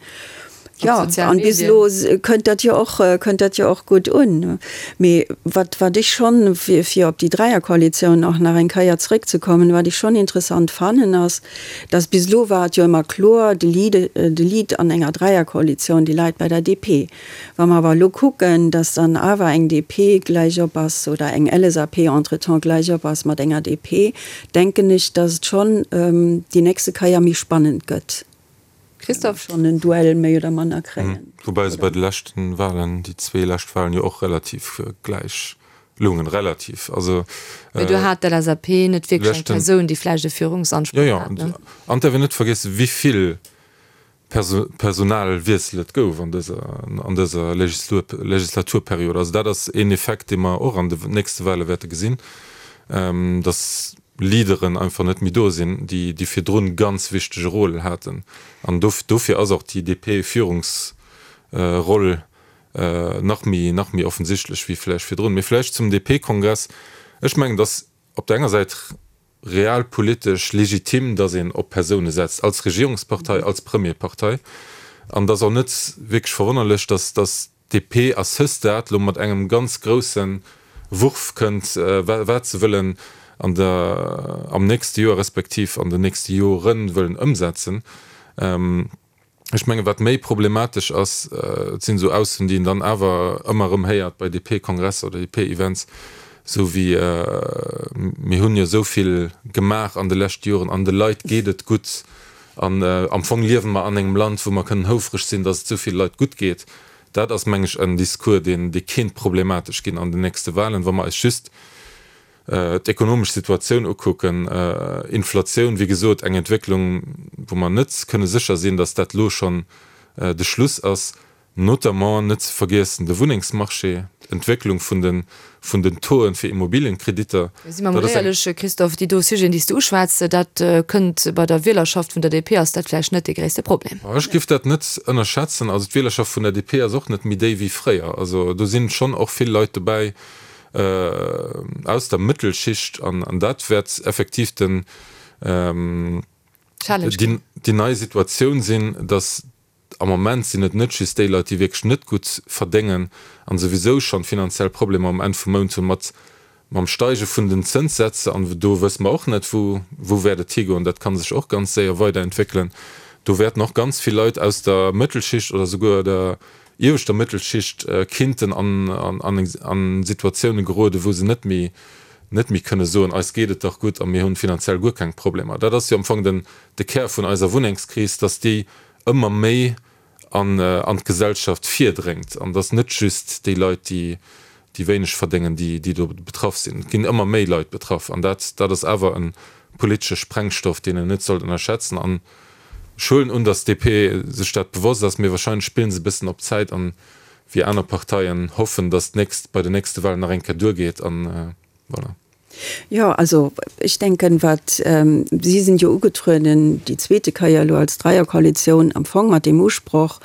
Jo, an bis elo kënnt dat jo och, kënnt dat jo och gutt un. Mee wat, wat ech schonn, fir, fir op déi Dräierkoalitioun och nach eng Kéier zrëckzekommen, wat ech schonn interessant fannen, ass, dass bis elo war et jo ëmmer kloer, de Lead, de Lead an enger Dräierkoalitioun, dee läit bei der DP. Wa mer awer elo kucken, dass dann awer eng DP gläichop ass oder eng LSAP entretemps gläichop ass mat enger DP, denken ech, dass et schonn déi nächste Kéier méi spannend gëtt. Christophe? Schonn en Duell méi oder manner kréien. Woubäi se bei de leschten Wahlen, déi zwee lescht Wahlen, jo och relativ gläich loungen. Relativ, also. Mee do hat d'LSAP net wierklech eng Persoun, déi vläicht e Führungsansproch hat, ne? Jo, jo. An et däerf een net vergiessen, wéi vill Personalwiessel et gouf an dëser, an dëser Legislaturperiod. Also dat ass een Effekt, dee mer och an de nächste Wahle wäerte gesinn, dass Leaderen einfach net méi do sinn, déi déi virdrun ganz wichtege Rôle haten. An dofir ass och déi DP-Führungsroll nach méi nach méi offensichtlech wéi vläicht virdrun. Mee vläicht zum DP-Kongress, Ech mengen, datt op der enger Säit realpolitesch legitim, datt een op Persoune setzt als Regierungspartei, als Premierpartei. An et ass och net wierklech verwonnerlech, datt datt DP à ce stade lo mat engem ganz grousse Wurf kënnt, wat se wëllen an der, am nächste Joer respektiv an den nächste Jore wëllen ëmsetzen. Ech mengen, wat méi problematesch ass, et sinn esou Aussoen, déi een dann awer ëmmer erëm héiert bei DP-Kongresser oder DP-Events, esou wéi, Mir hunn jo esou vill gemaach an de leschte Joren an de Leit geet et gutt An am Fong liewe mer an engem Land, wou mer kënnen houfreg sinn, datt et esou ville Leit gutt geet. Dat ass, meng ech, en Discours, deen, dee kéint problematesch ginn an den nächste Wahlen, wa mer eis just d'ekonomesch Situatioun ukucken. Inflatioun, wéi gesot, eng Entwécklung, wou mer net kënne sécher sinn, datt dat elo schonn de Schluss ass. Notamment net ze vergiessen de Wunnengsmarché, d'Entwécklung vun de vun den Tauxen fir Immobilienkreditter. Si mer mol éierlech, Christophe, déi do Sujeten, déi s de uschwätz, dat kënnt bei der Wielerschaft vun der DP, ass dat vläicht net dee gréisste Problem. Ech géif dat net ënnerschätzen. Also d'Wielerschaft vun der DP ass och net méi déi wéi fréier. Also do sinn schonn och vill Leit dobäi aus der Mëttelschicht an dat wäert effektiv den déi nei Situatioun sinn, datt Am Moment sinn et net just déi Leit, déi wierklech net gutt verdéngen an souwisou schonn finanziell Problemer um Enn vum Mount hunn, mat mam Steige vun den Zënssätze, an do wësse mer och net, wou wou wäert et higoen, dat ka sech och ganz séier weiderentwéckelen, do wäerten och ganz vill Leit aus der Mëttelschicht oder souguer der ieweschter Mëttelschicht kinnten an an Situatioune geroden, wou se net méi net méi kënne soen, eis geet et dach gutt a mir hunn finanziell guer keng Problemer. Dat ass jo am Fong den de Kär vun eiser Wunnengskris, dass déi ëmmer méi an an d'Gesellschaft virdréngt an dass net just déi Leit, déi déi wéineg verdéngen, déi déi do betraff sinn. Et ginn ëmmer méi Leit betraff an dat dat ass awer e politesche Sprengstoff, deen een net sollt ënnerschätzen. An ech huelen un, dass d'DP sech dat bewosst ass, mee wahrscheinlech spillen se e bëssen op Zäit an wéi aner Parteien hoffen, dass d'nächst bei den nächste Wahlen nach eng Kéier duergeet an voilà. Jo, also ech denken, wat, si sinn jo ugetrueden déi zweete Kéier elo als Dreierkoalitioun am Fong mat deem Usproch,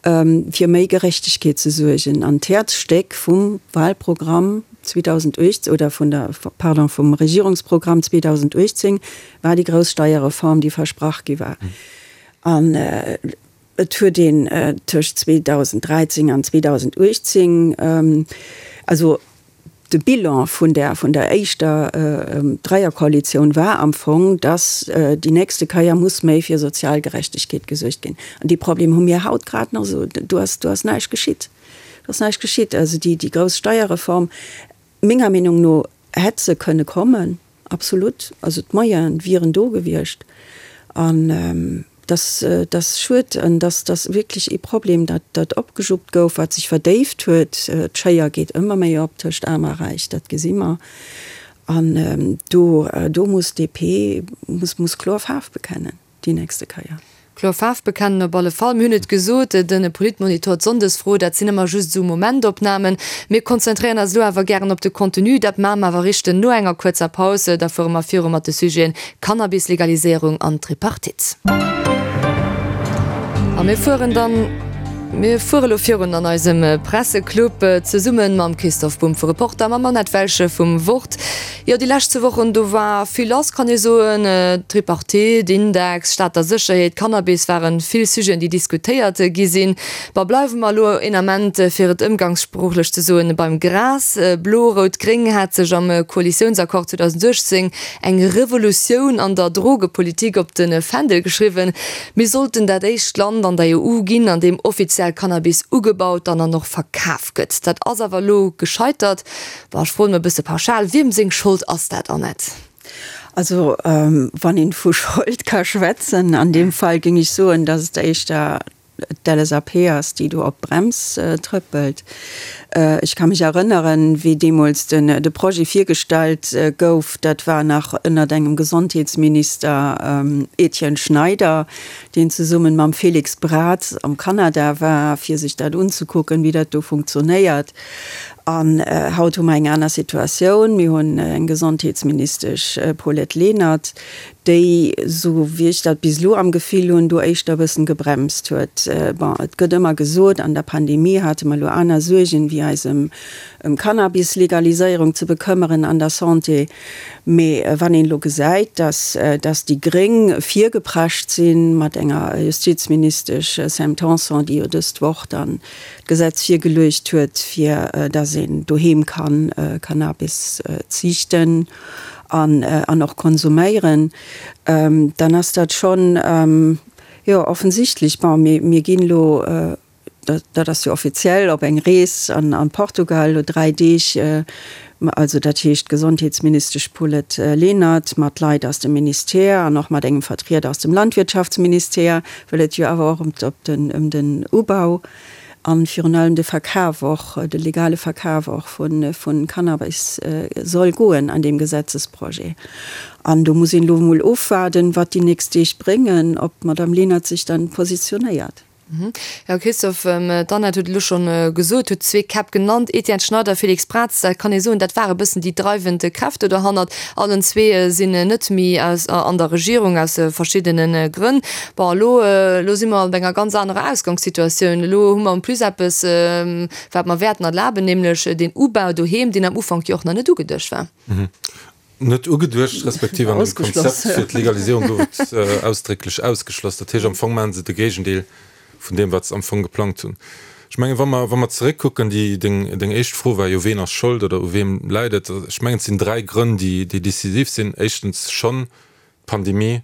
fir méi Gerechtegkeet ze suergen. An d'Häerzstéck vum Wahlprogramm 2018, oder vun der, pardon, vum Regierungsprogramm 2018 war déi grouss Steierreform, déi versprach gi war. An et huet een tëscht 2013 an 2018, also De Bilan vun der vun der éischter Dreierkoalitioun war am Fong, datt déi nächste Keier muss méi fir sozial Gerechtegkeet gesuergt ginn. An dee Problem hu mir haut grad nach esou. Do ass do ass näischt geschitt. Do ass näischt geschitt. Also déi déi grouss Steierreform, menger Meenung no hätt se kënne kommen. Absolut, also d'Moyene wieren do gewiescht an dass dass schued an dass dass wierklech ee Problem, dat dat opgejuppt gouf, wat sech verdéift huet. D'Schéier geet ëmmer méi op tëscht Aarm a Räich, dat gesi mer. An do do muss d'DP muss muss kloer Faarf bekennen. déi nächste Keier. Kloer Faarf bekennen op alle Fall. Mir hunn et gesot, de Politmonitor, d'Sonndesfro, dat sinn ëmmer just esou Momentopnamen. Mir konzentréieren eis elo awer gären op de Contenu. Dat maache mer awer richten no enger kuerzer Paus. Da fuere mer viru mat de Sujeten Cannabis-Legaliséierung an Tripartite. A mir fueren dann, mir fuere elo virun an eisem Presseclub, zesumme mam Christoph Bumb vu Reporter, mam Annette Welge vum Wort. Jo, déi lescht zwou Wochen, do war vill lass, kann ee soen. D'Tripartite, Index, Stater Sécherheet, Cannabis waren vill Sujeten, déi diskutéiert gi sinn. Bon, bleiwe mer elo een Ament, fir et ëmgangssproochlech ze soen, beim Gras. Blo-Rout-Gréng hat sech am Koalitiounsaccord 2018 eng Revolutioun an der Drogepolitik op de Fändel geschriwwen. Mir sollten dat éischt Land an der EU ginn, an deem offiziell Cannabis ugebaut an an och verkaf gëtt. Dat ass awer elo gescheitert. Bon, ech froen emol e bësse pauschal, Wiem seng Schold ass dat, Annette? Also, wann een vu Schold ka schwätzen, an deem Fall géing ech soen, datt et éischter d'LSAP ass, déi do op d'Brems trëppelt. Ech ka mech erënneren, wéi deemools de Projet virgestallt gouf, dat war nach ënnert engem Gesondheetsminister Etienne Schneider, deen zesummen mam Félix Braz am Kanada war, fir sech dat unzekucken, wéi dat do funktionéiert. An haut hu mer eng aner Situatioun. Mir hunn eng Gesondheetsministesch Paulette Lenert, déi, esou wéi ech dat bis elo am Gefill hunn, do éischter e bëssen gebremst huet. Bon, et gëtt ëmmer gesot, an der Pandemie hate mer elo aner Suergen, wéi eis ëm Cannabis-Legaliséierung ze bekëmmeren an der Santé. Mee wann een elo gesäit, dass, dass déi Gréng virgeprescht si mat enger Justizministesch Sam Tanson, déi jo dëst Woch dann d'Gesetz virgeluecht huet, fir dass een doheem kann Cannabis ziichten an an och konsuméieren, dann ass dat schonn, jo, offensichtlech. Bon, mir mir ginn elo, dat ass jo offiziell, op eng Rees an an Portugal, elo 3 Deeg, also dat heescht d'Gesondheetsministesch Paulette Lenert mat Leit aus dem Ministère an och mat engem Vertrieder aus dem Landwirtschaftsministère, well et jo awer och ëm den Ubau a virun allem de Verkaf och, de legale Verkaf och vu Cannabis soll goen an deem Gesetzesprojet. An do muss een elo emol ofwaarden, wat déi nächst Deeg bréngen, ob d'Madame Lenert sech dann positionéiert. Jo, Christophe, d'Annette huet elo scho gesot, huet zwee Käpp genannt, Etienne Schneider, Félix Braz. Dat kann ee soen, dat ware bëssen déi dreiwend Kräfte dohannert. Allen zwee sinn net méi an der Regierung aus verschiddene Grënn. Bon, elo, elo si mer op enger ganz anerer Ausgangssituatioun. Elo hu mer en plus eppes, wat mer wäerten erlaben, nämlech deen Ubau doheem, deen am Ufank jo och nach net ugeduecht war. Net ugeduecht, respektiv an dem Konzept fir d'Legaliséierung gouf et ausdrécklech ausgeschloss. Dat heescht, am Fong maache se de Géigendeel vun deem, wat se am Fong geplangt hunn. Ech mengen, wa mer, wa mer zeréckkucken, déi, deng, deng éischt Fro war jo, Ween ass Schold oder u weem läit et? Ech mengen, et sinn dräi Grënn, déi, déi decisiv sinn. Éischtens schonn d'Pandemie,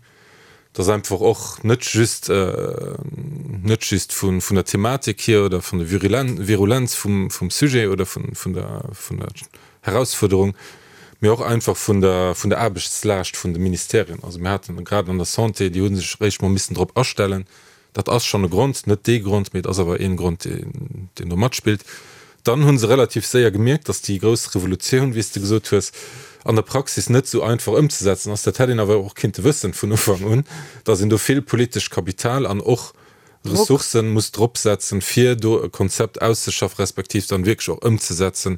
dass einfach och net just, net just vun, vun der Thematik hier oder vun der Virulenz vum, vum Sujet oder vun, vun der, vun der Herausfuerderung, mee och einfach vun der, vun der Aarbechtslaascht vun de Ministerien. Also mir haten grad an der Santé, déi hu sech eréischt mol missen drop astellen, Dat ass schonn e Grond, net dee Grond, mee et ass awer een Grond, deen do matspillt. Dann hu se relativ séier gemierkt, datt déi grouss Revolutioun, wéi s de gesot hues, an der Praxis net esou einfach ëmzesetzen ass. Dat hätt een awer och kinnte wëssen vun Ufank un, datt een do vill politescht Kapital an och Ressourcen muss dropsetzen, fir do e Konzept auszeschaffen, respektiv dann wierklech och ëmzesetzen.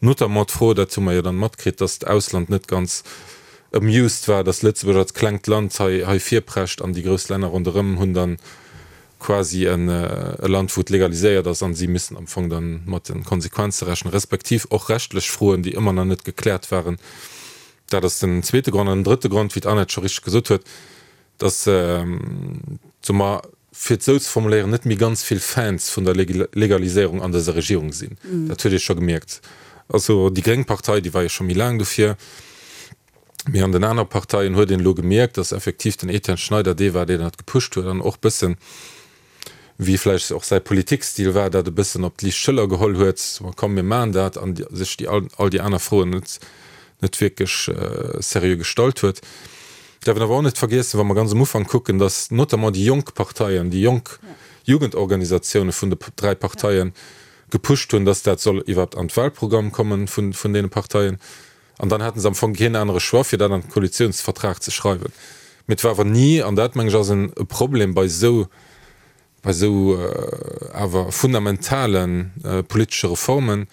Notamment d'Fro, dat hu mer jo dann matkritt, dass d'Ausland net ganz amused war, dass Lëtzebuerg als klengt Land hei hei virprescht an déi grouss Länner ronderëm hunn dann quasi e Land, wou et legaliséiert ass an si müssen am Fong dann mat de Konsequenze rechnen, respektiv och rechtlech Froen, déi ëmmer nach net gekläert waren. Dat ass den zweete Grond. An den drëtte Grond, wéi d'Annette scho richteg gesot huet, dass, soe mer, fir et esou ze formuléieren, net méi ganz vill Fans vun der Legaliséierung an dëser Regierung sinn. Dat huet ee scho gemierkt. Also déi gréng Partei, déi war jo scho méi laang dofir, mee an den anere Parteien huet een elo gemierkt, dass effektiv den Etienne Schneider dee war, deen dat gepusht huet an och bëssen, wéi vläicht och säi Politikstil war, dat e bëssen op d'liicht Schëller geholl huet, ma komm mir maachen dat, an sech déi all déi aner Froen net net wierklech seriö gestallt huet. Däerf een awer och net vergiessen, wa mer ganz um Ufank kucken, datt notamment déi jonk Parteien, déi jonk Jugendorganisatioune vun de dräi Parteien gepusht hunn, datt dat soll iwwerhaapt an d'Wahlprogramm kommen vun vun deene Parteien. An dann haten se am Fong keen anere Choix, fir dat an den Koalitionsvertrag ze schreiwen. Mee et war awer ni, an dat, meng ech, ass e Problem bei esou, bei esou awer fundamentale politesche Reformen,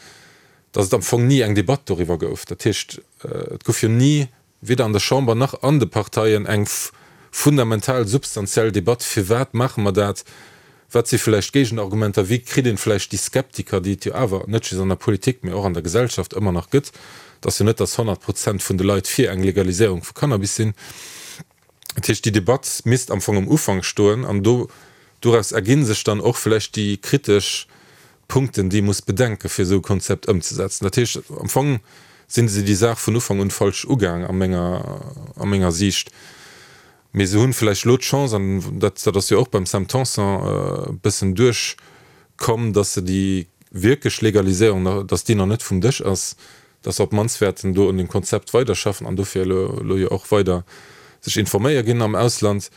datt et am Fong ni eng Debatt doriwwer gouf. Dat heescht, et gouf jo ni, weder an der Chamber nach an de Parteien, eng fundamental, substantiell Debatt, Firwat maache mer dat? Wat si vläicht Géigenargumenter? Wéi kritt een vläicht déi Skeptiker, déi et jo awer net just an der Politik, mee och an der Gesellschaft ëmmer nach gëtt, et ass jo net, datt 100 Prozent vun de Leit fir eng Legaliséierung vu Cannabis sinn. Dat heescht, déi Debatt misst am Fong um Ufank stoen an do, doraus erginn sech dann och vläicht déi kritesch Punkten, déi ee muss bedenken, fir esou e Konzept ëmzesetzen. Dat heescht, am Fong sinn se déi Saach vun Ufank un falsch ugaang a menger, a menger Siicht. Mee se hunn vläicht elo d'Chance, an dat dat ass jo och beim Sam Tanson e bëssen duerchkomm, datt se déi wierklech Legaliséierung nach, datt déi nach net vum Dësch ass, datt se op d'mannst wäerten do un dem Konzept weiderschaffen an dofir elo elo jo och weider sech informéier ginn am Ausland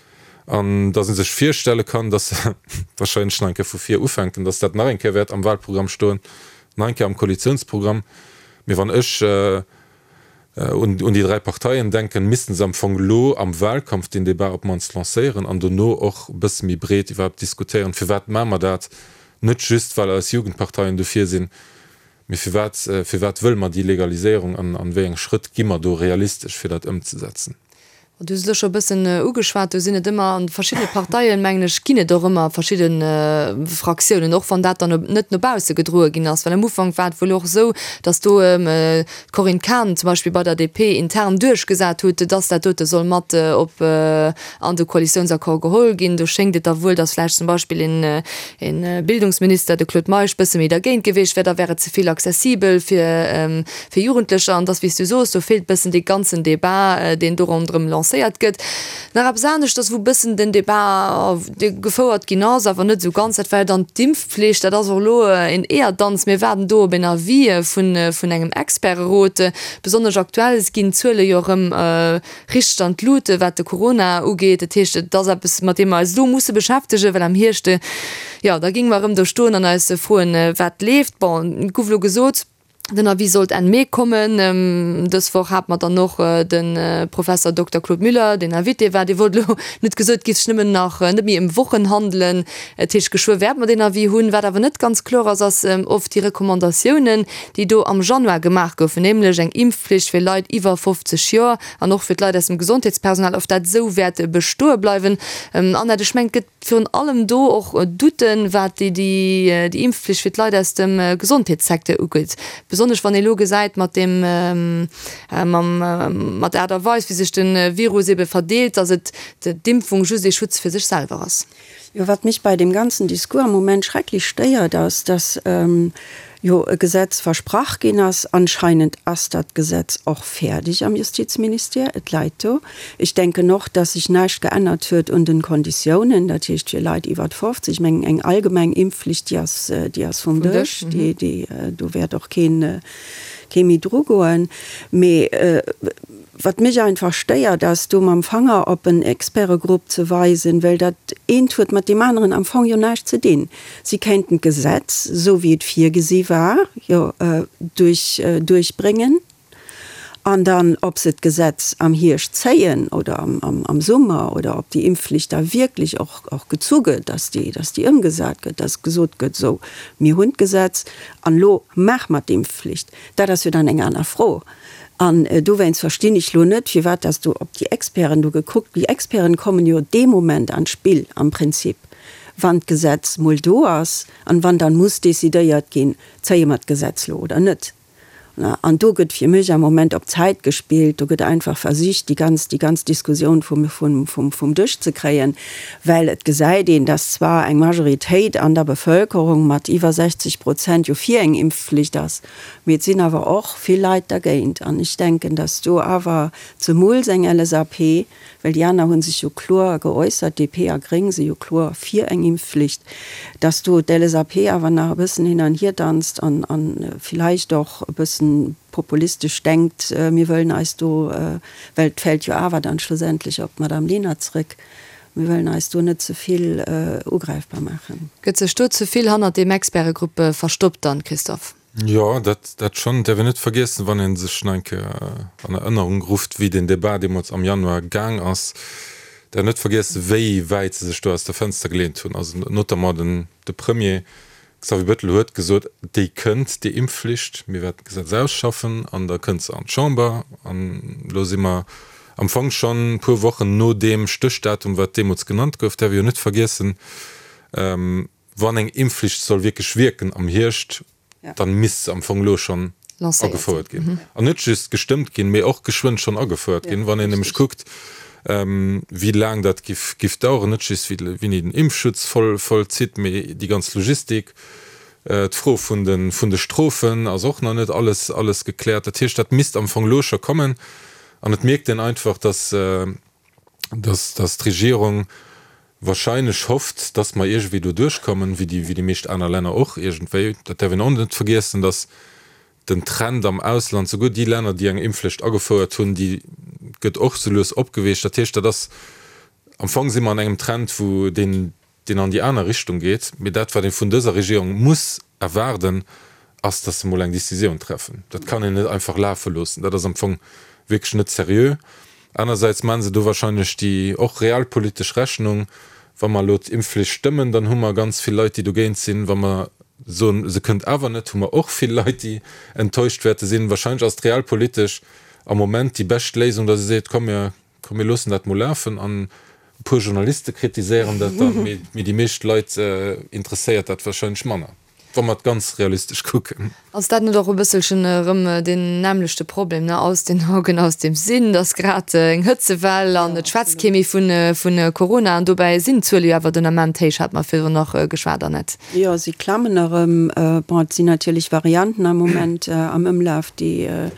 an datt ee sech virstelle kann, datt se wahrscheinlech nach eng Kéier vu vir ufänken, datt dat nach eng Kéier wäert am Wahlprogramm stoen, nach eng Kéier am Koalitionsprogramm. Mee wann ech un déi 3 Parteien denken, missten se am Fong elo am Wahlkampf deen Débat op d'mannst lancéieren an dono och e bësse méi breet iwwerhaapt diskutéieren, firwat maache mer dat, net just well eis Jugendparteien dofir sinn, mee firwat, firwat wëlle mer déi Legaliséierung an an wéi eng Schrëtt gi mer do realistesch fir dat ëmzesetzen. Du hues et elo scho e bëssen ugeschwat, do sinn et ëmmer an de verschiddene Parteien, mengen ech, ginn et och ëmmer verschidde Fraktiounen, och wann dat dann net no bausse gedroe ginn ass. Well am Ufank war et wuel och esou, datt do d'Corinne Cahen zum Beispill bei der DP intern duerchgesat hutt, datt dat dote soll mat op an de Koalitiounsaccord geholl ginn. Do schéngt et da wuel, datt vläicht zum Beispill een Bildungsminister, de Claude Meisch, bësse méi dergéint gewiescht wär, da wär et ze vill accessibel fir fir Jugendlecher, an dass, wéi s du soos, do feelt bëssen dee ganzen Débat, deen do ronderëm lancéiert gëtt. Nach eppes aneschters, wou bëssen den Débat gefouert ginn ass, awer net esou ganz, dat war jo dann d'Impfpflicht. Dat ass och elo een Eeërdanz. Mir waarden do op en Avis vun, vun engem Experterot. Besonnesch aktuell ginn d'Zuele jo erëm richteg an d'Lut, wat de Corona ugeet. Dat heescht, et ass eppes, mat deem mer eis elo musse beschäftegen, well am Hierscht, jo, da géinge mer erëm do stoen an eis froen, wat leeft. Bon, et gouf elo gesot, Den Avis sollt Enn Mee kommen. Dës Woch hate mer dann och de Professer Dokter Claude Müller, deen Invité war. Dee wollt elo net gesot, et géif sech nëmmen nach net méi ëm Wochen handelen. Dat heescht, geschwë wäerte mer deen Avis hunn. Wat awer net ganz kloer ass, ass of déi Recommandatiounen, déi do am Januar gemaach goufen, nämlech eng Impfpflicht fir Leit iwwer 50 Joer an och fir d'Leit aus dem Gesondheetspersonal, of dat esou wäert bestoe bleiwen. Annette, ech mengen, et gëtt Virun allem do och Douten, wat déi Impfpflicht fir d'Leit aus dem Gesondheetssecteur ugeet. Besonnesch wann ee lo gesäit mat deem, mam, mat der Aart a Weis, wéi sech de Virus ebe verdeelt, datt et d'Impfung just ee Schutz fir sech selwer ass. Jo, wat mech bei deem ganzen Discours am Moment schrecklech stéiert, ass, datt jo e Gesetz versprach ginn ass. Anscheinend ass dat Gesetz och fäerdeg am Justizministère, et läit do. Ech denken och, dass sech näischt geännert huet un den Konditiounen, dat heescht fir Leit iwwert 50. Ech mengen, eng allgemeng Impfflicht, déi ass, déi ass vum Dësch, déi, déi, do wäert och keen, kee méi drugoen. Mee wat mech einfach stéiert, ass do mam Fanger op en Expertegrupp ze weisen, well dat eent huet mat deem aneren am Fong jo näischt ze dinn. Si kéinten d'Gesetz, esou wéi et virgesi war, jo duerch, duerchbréngen. An dann, ob se d'Gesetz am Hierscht zéien oder am Summer oder ob déi Impfflicht da wierklech och gezu gëtt, dass déi, dass déi ëmgesat gëtt, dass gesot gëtt, esou, mir hunn d'Gesetz an elo maache mer d'Impfflicht, dat ass jo dann eng aner Fro. An dowéinst verstinn ech elo net, firwat dass do op déi Experten do gekuckt, déi Experten kommen jo dee Moment an d'Spill am Prinzip, wann d'Gesetz mol do ass an wann dann muss decidéiert ginn, zéie mer d'Gesetz elo oder net. An do gëtt fir mech am Moment op Zäit gespillt, do gëtt einfach versicht, déi ganz, déi ganz Diskussioun vum, vum, vum, vum Dësch ze kréien, well et gesäit een, dass zwar eng Majoritéit an der Bevölkerung mat iwwer 60 Prozent jo fir eng Impfflicht ass, mee et sinn awer och vill Leit dergéint. An ech denken, dass do awer zemools eng LSAP, well déi aner hu sech jo kloer geäussert, DP a Gréng si jo kloer fir eng Impfflicht, dass do d'LSAP awer nach e bëssen hin an hier danzt an villäicht och e bëssen populistesch denkt, mir wëllen eis do, well et fält jo awer dann schlussendlech op d'Madame Lenert zrëck, mir wëllen eis do net ze vill ugräifbar maachen. Gëtt sech do ze vill hannert deem Expertegrupp verstoppt dann, Christophe? Jo, dat, dat schonn. Et däerf een net vergiessen, wann ee sech nach eng Kéier an Erënnerung rufft, wéi deen Debat deemools am Januar gaang ass, däerf een net vergiessen, wéi wäit se sech do aus der Fenster geleent hunn. Also notamment den, de Premier Xavier Bettel huet gesot, déi kënnt, déi Impfflicht, mir wäerten d'Gesetz ausschaffen an da kënnt se an d'Chamber. An elo si mer am Fong schonn e puer Wochen no deem Stéchdatum, wat deemools genannt gouf. Däerf ee jo net vergiessen, Wann eng Impfflicht soll wierklech wierken am Hierscht, dann misst se am Fong elo schonn agefouert ginn. An net just gestëmmt ginn, mee och geschwënn schonn agefouert ginn. Wann een nämlech kuckt, wéi laang dat giff daueren, net just wéini den Impfschutz voll zitt, mee déi ganz Logistik, d'Fro vun de Strofen ass och nach net alles gekläert. Dat heescht, dat misst am Fong elo scho kommen. An et mierkt een einfach, dass dass d'Regierung wahrscheinlech hofft, dass mer iergendwéi do duerchkommen, wéi déi, wéi déi meescht aner Länner och iergendwéi. Dat däerf een och net vergiessen, dass den Trend am Ausland, souguer déi Länner, déi eng Impfflicht agefouert hunn, déi gëtt och sou lues opgeweecht. Dat heescht, dat ass, am Fong si mer an engem Trend, wou deen, deen an déi aner Richtung geet. Mee dat, wat ee vun dëser Regierung muss erwaarden, ass, dass se mol eng Décisioun treffen. Dat kann een net einfach lafe loossen. Dat ass am Fong wierklech net seriö. Anersäits maache se do wahrscheinlech déi och realpolitesch Rechnung, Wa mer elo d'Impfflicht stëmmen, dann hu mer ganz vill Leit, déi dogéint sinn. Wa mer soen, se kënnt awer net, hu mer och vill Leit, déi enttäuscht wäerte sinn. Wahrscheinlech ass et realpolitesch am Moment déi bescht Léisung, dass ee seet, Komm, mir Komm mir loossen dat mol lafen an e puer Journaliste kritiséieren dat dann, mee déi meescht Leit interesséiert dat wahrscheinlech manner, wa mer et ganz realistesch kucken. Ass dat net och e bësselchen erëm deen nämmlechte Problem, ne, aus den Augen, aus dem Sinn, et ass grad eng Hëtzewell an et schwätzt kee méi vu Corona an dobäi sinn d'Zuele jo awer den Ament héich, hat mer virdrun nach geschwat, Annette. Jo, si klammen erëm. Bon, et sinn natierlech Varianten am Moment am Ëmlaf, déi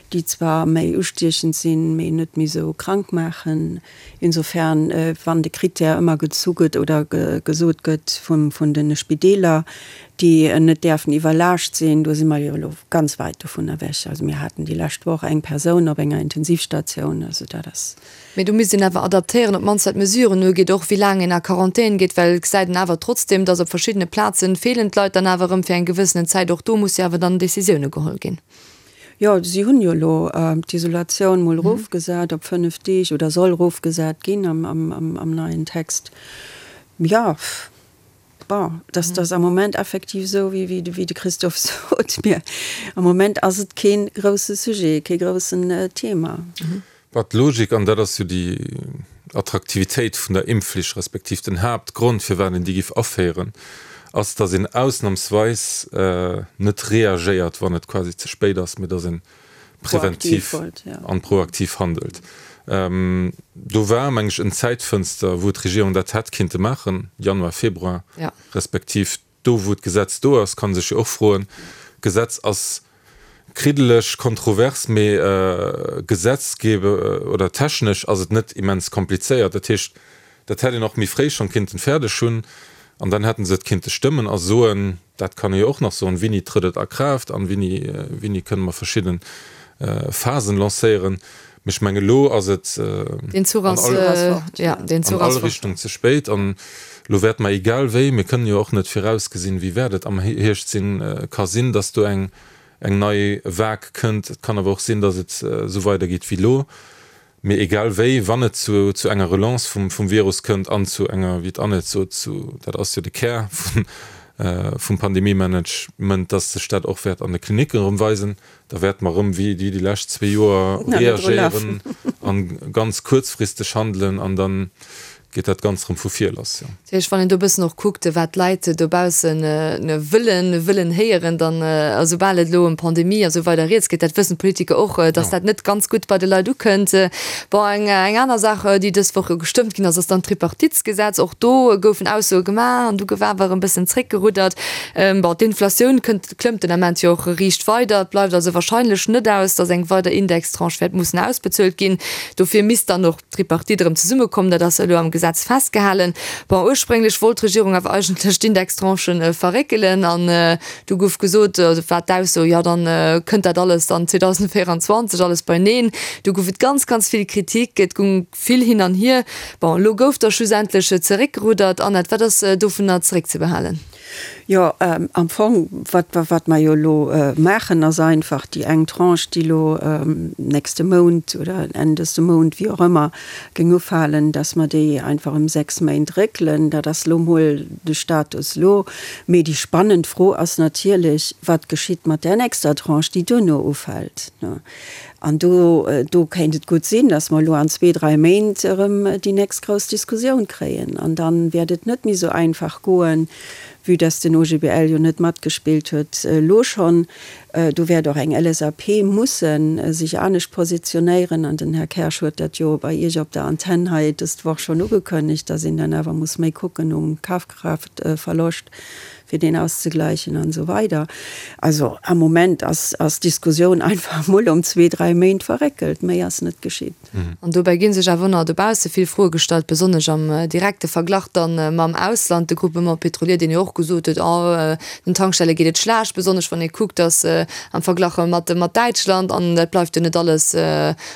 déi zwar méi ustiechend sinn, mee net méi esou krank maachen. Insofern, wann de Critère ëmmer gezu gëtt oder gesot gëtt vun de Spideeler, déi net däerfen iwwerlaascht sinn, do si mer jo elo ganz wäit dovun ewech. Also mir haten déi lescht Woch eng Persoun op enger Intensivstatioun, also dat ass. Mee do misst een awer adaptéieren, op d'mannst wat d'Mesuren ugeet, och wéi laang een a Quarantän geet, well et gesäit een awer trotzdeem, datt op verschiddene Plazen feelen d'Leit dann awer erëm fir eng gewëssenen Zäit. Och do musse jo awer dann Décisioune geholl ginn. Jo, si hunn jo elo d'Isolatioun mol erofgesat op 5 Deeg oder soll erofgesat ginn am neien Text. Jo, bon, dat ass am Moment effektiv esou, wéi de Christophe sot. Mee am Moment ass et kee grousse Sujet, kee groussen Thema. Bah, d'Logik, an dat ass jo déi Attraktivitéit vun der Impfflicht, respektiv den Haaptgrond, firwat een déi giff aféieren, ass, datt een ausnamsweis net reagéiert, wann et quasi ze spéit ass, mee datt ee präventiv an proaktiv handelt. Do war, meng ech, en Zäitfënster, wou d'Regierung dat hätt kinnte maachen, Januar, Februar, respektiv Do wou d'Gesetz do ass, kann ee sech jo och froen, d'Gesetz ass kriddeleg, kontrovers, mee gesetzgebe oder technesch ass et net immens komplizéiert. Dat heescht, dat hätt een och méi fréi schonn kinnten fäerdeg hunn an dann hätte se et kinnte stëmmen a soen, dat kann ee jo och nach soen, wéini trëtt et a Kraaft an wéini, wéini kënne mer verschidde Phasen lancéieren. Mee ech mengen, elo ass et an all Richtung ze spéit. An elo wäerte mer, egal wéi, mir kënnen jo och net virausgesinn, wéi wäert et am Hierscht sinn, ka sinn, datt do eng. eng nei Vague kënnt. Et kann awer och sinn, datt et esou weidergeet wéi elo. Mee egal wéi, wann et zu zu enger Relance vum vum Virus kënnt an zu enger, wéi d'Annette sot, zu, dat ass jo de Kär vun vum Pandemiemanagement, datt sech dat och wäert an de Klinicken erëm weisen, da wäerte mer erëm wéi déi lescht zwee Joer reagéieren an ganz kuerzfristeg handelen an da geet dat Ganzt erëm vu vir lass, jo. Dat heescht, wann een do e bëssen och kuckt, wat d'Leit dobausse wëllen, wëllen héieren, dann, a soubal et elo ëm Pandemie a sou weider rieds geet, dat wëssen d'Politiker och, datt dat net ganz gutt bei de Leit ukënnt. Bon, eng, eng aner Saach, déi dës Woch jo gestëmmt ginn ass, ass dann d'Tripartitsgesetz. Och do goufen Aussoe gemaach an du gouf awer erëm e bëssen zréckgeruddert. Bon, d'Inflatioun kënnt, klëmmt den Ament jo och riicht weider. Et bleift also wahrscheinlech net aus, datt eng weider Indextranche wäert mussen ausbezuelt ginn. Dofir misst dann och d'Tripartite erëm zesummekomm, dat ass elo am Gesetz festgehalen. Bon, ursprénglech wollt d'Regierung awer eigentlech d'Indextranchen verréckelen an du gouf gesot, also war d'Ausso, jo dann kënnt dat alles dann 2024 alles beineen. Du gouf et ganz, ganz vill Kritik, et gung vill hin an hier. Bon, elo gouf da schlussendlech zeréckgeruddert. Annette, wat ass dovunner zeréckzebehalen? Jo, am Fong, wat, wat mer jo elo maachen, ass einfach déi eng Tranche, déi elo nächste Mount oder Enn dëste Mount, wéi och ëmmer, géing ufalen, dass mer déi einfach ëm 6 Méint réckelen. Dat ass elo mol de Status elo. Mee déi spannend Fro ass natierlech, Wat geschitt mat där nächster Tranche, déi duerno ufält? An do, do kéint et gutt sinn, dass mer elo an zwee, dräi Méint erëm déi nächst grouss Diskussioun kréien. An da wäert et net méi esou einfach goen, vue dass den OGBL jo net matgespillt huet elo schonn. Do wäert och eng LSAP musse sech anescht positionéieren. An den Här Kersch huet dat jo bei Iech op der Antenn hei dëst Woch schonn ugekënnegt, dass een dann awer muss méi kucken um Kafkraaftverloscht. fir deen auszegläichen an esou weider. Also am Moment ass ass d'Diskussioun einfach emol ëm zwee, dräi Méint verréckelt, méi ass net geschitt. An dobäi gi sech awer och nach dobausse vill Froe gestallt, besonnesch am direkte Verglach dann mam Ausland. De Groupement Pétrolier, deen jo och gesot huet, oh den Tankstelle geet et schlecht, besonnesch wann ee kuckt, datt am Verglach mat mat Däitschland, an dat bleift jo net alles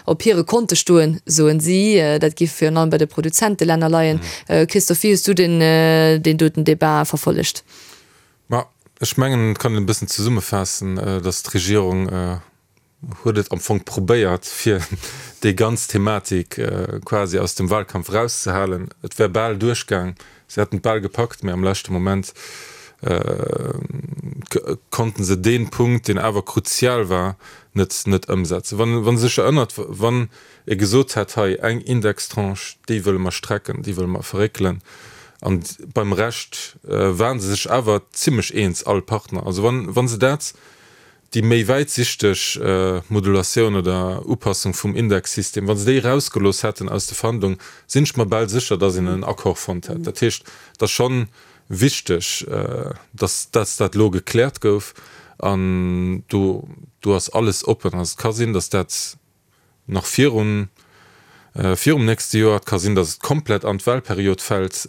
op hire Konte stoen, soen si. Dat géif virun allem bei de Produzentelänner leien. Christophe, wéi hues du deen deen doten Debat verfollegt? Ma ech mengen, et kann een e bëssen zesummefaassen, datt d'Regierung huet et am Fong probéiert, fir déi ganz Thematik quasi aus dem Wahlkampf erauszehalen. Et wär bal duerchgaang, si hätten et bal gepackt, mä am leschte Moment konnte se dee Punkt, deen awer kruzial war, net net ëmsetzen. Wann wann e sech erënnert, wann e gesot hätt, hei eng Indextranche, déi wëlle mer strecken, déi wëlle mer verréckelen, an beim Rescht ware se sech awer zimlech eens, all Partner. Also wann wa se dat, déi méi wäitsichteg Modulatioun oder Upassung vum Indexsystem, wa se déi erausgelooss hätten aus de Verhandlungen, sinn ech mer bal sécher, datt een en Accord fonnt hätt. Dat heescht, et ass schonn wichteg, dass dass dat elo gekläert gouf an do do ass alles oppen. Also et ka sinn, dass dat nach virun virum nächste Joer, et ka sinn, dass et komplett an d'Wahlperiod fält,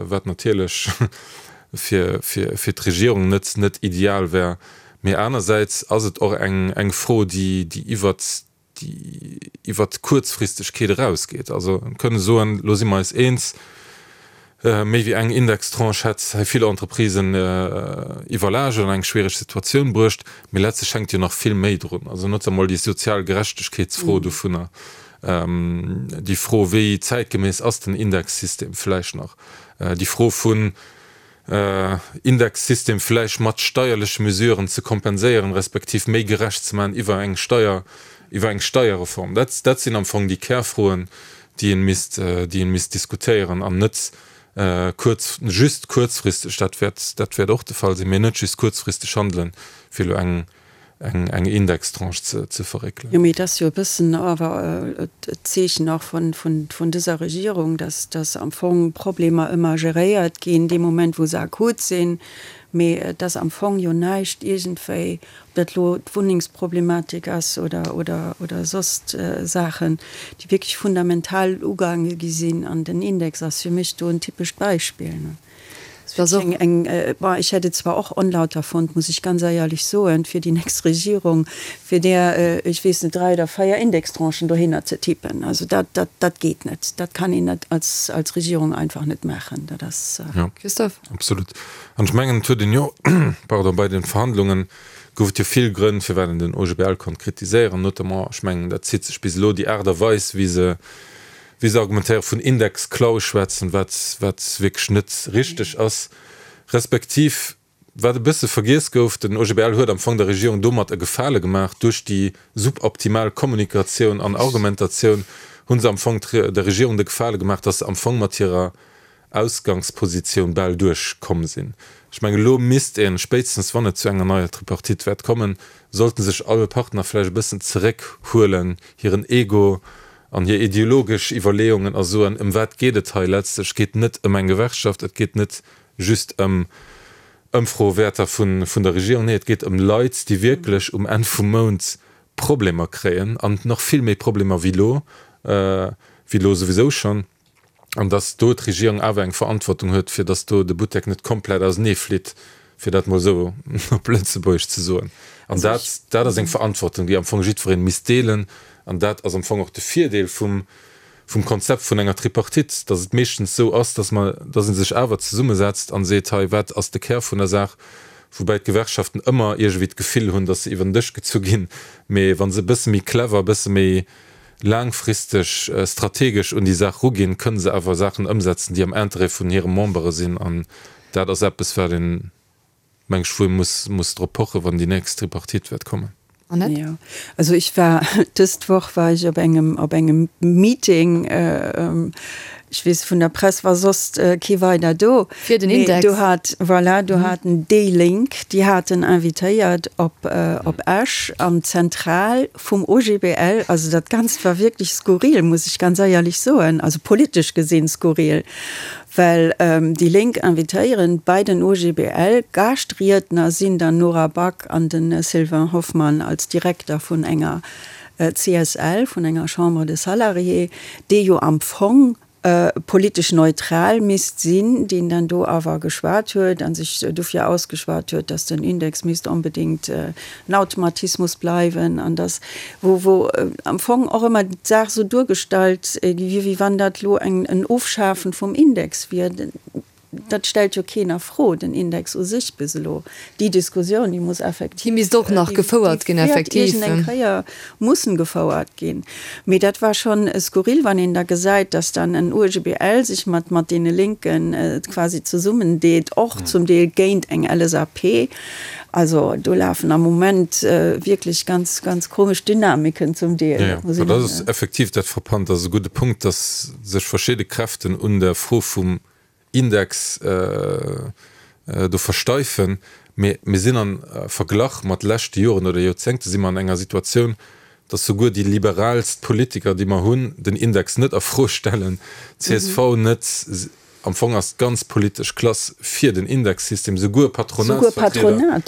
wat natierlech fir fir fir d'Regierung net net ideal wär. Mee anersäits ass et och eng eng Fro, déi déi iwwert déi iwwert d'Kuerzfristegkeet erausgeet. Also kënne soen, elo si mer eis eens, méi wéi eng Indextranche hätt hei vill Entreprisen iwwerlaascht an eng schwiereg Situatioun bruecht. Mee letztlech hänkt jo nach vill méi drun. Also notamment déi sozial Gerechtegkeetsfro dovunner, déi Fro, wéi zäitgemäss ass den Indexsystem vläicht nach, déi Fro vun, Indexsystem vläicht mat steierleche Mesuren ze kompenséieren, respektiv méi gerecht ze maachen iwwer eng Steier, iwwer eng Steierreform. Dat, dat sinn am Fong déi Kärfroen, déi ee misst, déi ee misst diskutéieren an net kuerz, just kuerzfristeg, dat wäert, dat wäert och de Fall sinn, mä net just kuerzfristeg handelen, fir elo eng, eng eng Indextranche ze ze verréckelen. Jo, mee et ass jo e bëssen awer d'Zeechen och vun vun vun dëser Regierung, dass dass am Fong Problemer ëmmer geréiert ginn dee Moment, wou se akut sinn, mee dass am Fong jo näischt iergendwéi, ob dat elo d'Wunnengsproblematik ass oder oder oder soss Saachen, déi wierklech fundamental ugaange gi sinn. An den Index ass fir mech do en typescht Beispill. Eng, bon, ech hätt et zwar och onlauter fonnt, muss ech ganz eierlech soen, fir déi nächst Regierung, fir där, ech weess net, dräi oder véier Indextranchen dohinner ze tippen. Also dat, dat, dat geet net. Dat kann een net als, als Regierung einfach net maachen. Dat ass. Jo, Christophe? absolut. An ech mengen, et huet een jo, pardon, bei de Verhandlungen. Gouf et jo vill Grënn, firwat een den OGBL konnt kritiséieren, notamment, ech mengen, dat zitt sech bis elo, déi Aart a Weis, wéi se, wéi se argumentéieren, vun Indexklau schwätzen, wat, wat wierklech net richteg ass, respektiv, wat e bësse vergiess gouf, den OGBL huet am Fong der Regierung domat e Gefale gemaach, duerch déi suboptimal Kommunikatioun an Argumentatioun hu se am Fong der Regierung de Gefale gemaach, datt se am Fong mat hirer Ausgangspositioun bal duerch komm sinn. Ech mengen, elo misst een, spéitstens wann et zu enger neier Tripartite wäert kommen, sollten sech all Partner vläicht e bëssen zeréck huelen, hiren Ego an hir ideologesch Iwwerleeungen a soen, ëm wat geet et hei letztlech? Et geet net ëm eng Gewerkschaft, et geet net just ëm Ëmfroewäerter vun der Regierung, nee, et geet ëm Leit, déi wierklech um Enn vum Mount Problemer kréien an nach vill méi Problemer wéi elo, wéi elo souwisou schonn. An datt do d'Regierung awer eng Verantwortung huet, fir datt do de Buttek net komplett auseneeflitt, fir dat mol esou op Lëtzebuergesch ze soen. An dat, dat ass eng Verantwortung, déi am Fong jiddweree misst deelen. An dat ass am Fong och de Virdeel vum, vum Konzept vun enger Tripartite, datt et meeschtens esou ass, datt mer, datt ee sech awer zesummesetzt an seet, hei, wat ass de Kär vun der Saach, woubäi d'Gewerkschaften ëmmer iergendwéi d'Gefill hunn, datt se iwwer den Dësch gezu ginn, mee wa se e bësse méi clever, e bësse méi laangfristeg strategesch un déi Saach ruginn, kënne se awer Saachen ëmsetzen, déi am Interêt vun hire Membere sinn. An dat ass eppes, wat een, meng ech, wou ee muss, muss drop pochen, wann déi nächst Tripartite wäert kommen. Annette? Jo, also ech war, dëst Woch war ech op engem, op engem Meeting, ech weess, vun der Press war soss kee weider do. Fir den Index. Mee do hat, voilà, do haten déi Lénk, déi haten invitéiert op, op Esch an d'Zentral vum OGBL, also dat Ganzt war wierklech skurril, muss ech ganz eierlech soen, also politesch gesinn skurril, well déi Lénk invitéieren bei den OGBL, Gaaschtriedner sinn dann Nora Back an de Sylvain Hoffmann als Direkter vun enger CSL, vun enger Chambre des Salariés, dee jo am Fong politesch neutral misst sinn, deen dann do awer geschwat huet a sech dofir ausgeschwat huet, datt den Index misst onbedéngt en Automatismus bleiwen an datt, wou, wou am Fong och ëmmer d'Saach esou duergestallt gi wier, wéi wann dat elo eng, en Ofschafen vum Index wier. Dat stellt jo keen a Fro, den Index u sech bis elo. Déi Diskussioun, déi muss effektiv. Déi misst och nach gefouert ginn, effektiv. Déi wäert iergendeng Kéier mussen gefouert ginn. Mee dat war schonn skurril, wann een da gesäit, dass dann en OGBL sech mat mat deene Lénken quasi zesummendeet, och zum Deel géint eng LSAP. Also do lafen am Moment wierklech ganz, ganz komesch Dynamiken zum Deel. Jo, jo, dat ass effektiv dat Frappant. Dat ass e gudde Punkt, dass sech verschidde Kräften un der Fro vum Index do versteifen, mee mir sinn am Verglach mat leschte Joren oder Joerzéngte si mer an enger Situatioun, datt souguer déi liberaalst Politiker, déi mer hunn, den Index net a Fro stellen, csv net, am Fong ass d'ganz politesch Klass fir den Indexsystem, souguer Patronatsvertrieder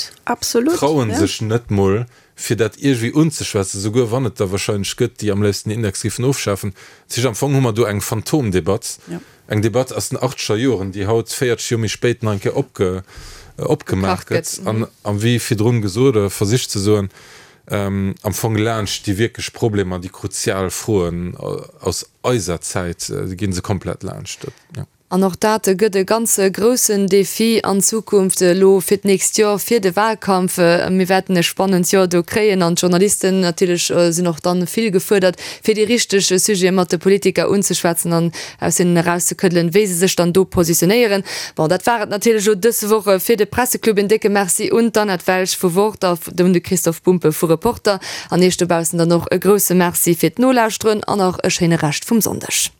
traue sech net mol fir dat iergendwéi unzeschwätzen, souguer wann et der wahrscheinlech gëtt, déi am léifsten den Index géifen ofschafen. Dat heescht, am Fong hu mer do eng Phantomdebatt, eng Debatt aus den achtzeger Joren, déi haut, 40 Joer méi spéit, nach eng Kéier opge, opgemaach gëtt an, a wéi virdrun gesot oder versicht ze soen, am Fong laanscht déi wierklech Problemer, déi kruzial Froen aus eiser Zäit, gi se komplett laanscht. Dat, jo. An och dat gëtt e ganz groussen Defi an Zukunft elo fir d'nächst Joer, fir de Wahlkampf. Mir wäerten e spannend Joer do kréien an d'Journalisten natierlech sinn och dann vill gefuerdert, fir déi richteg Sujete mat de Politiker unzeschwätzen an aus hinnen erauszekëddelen, wéi se sech dann do positionéieren. Bon, dat war et natierlech elo dës Woch fir de Presseclub. En décke Merci un d'Annette Welsch vu Wort a un de Christoph Bumpe vu Reporter. An Iech dobaussen dann och e grousse Merci fir d'Nolauschteren an nach e schéine Rescht vum Sonndeg.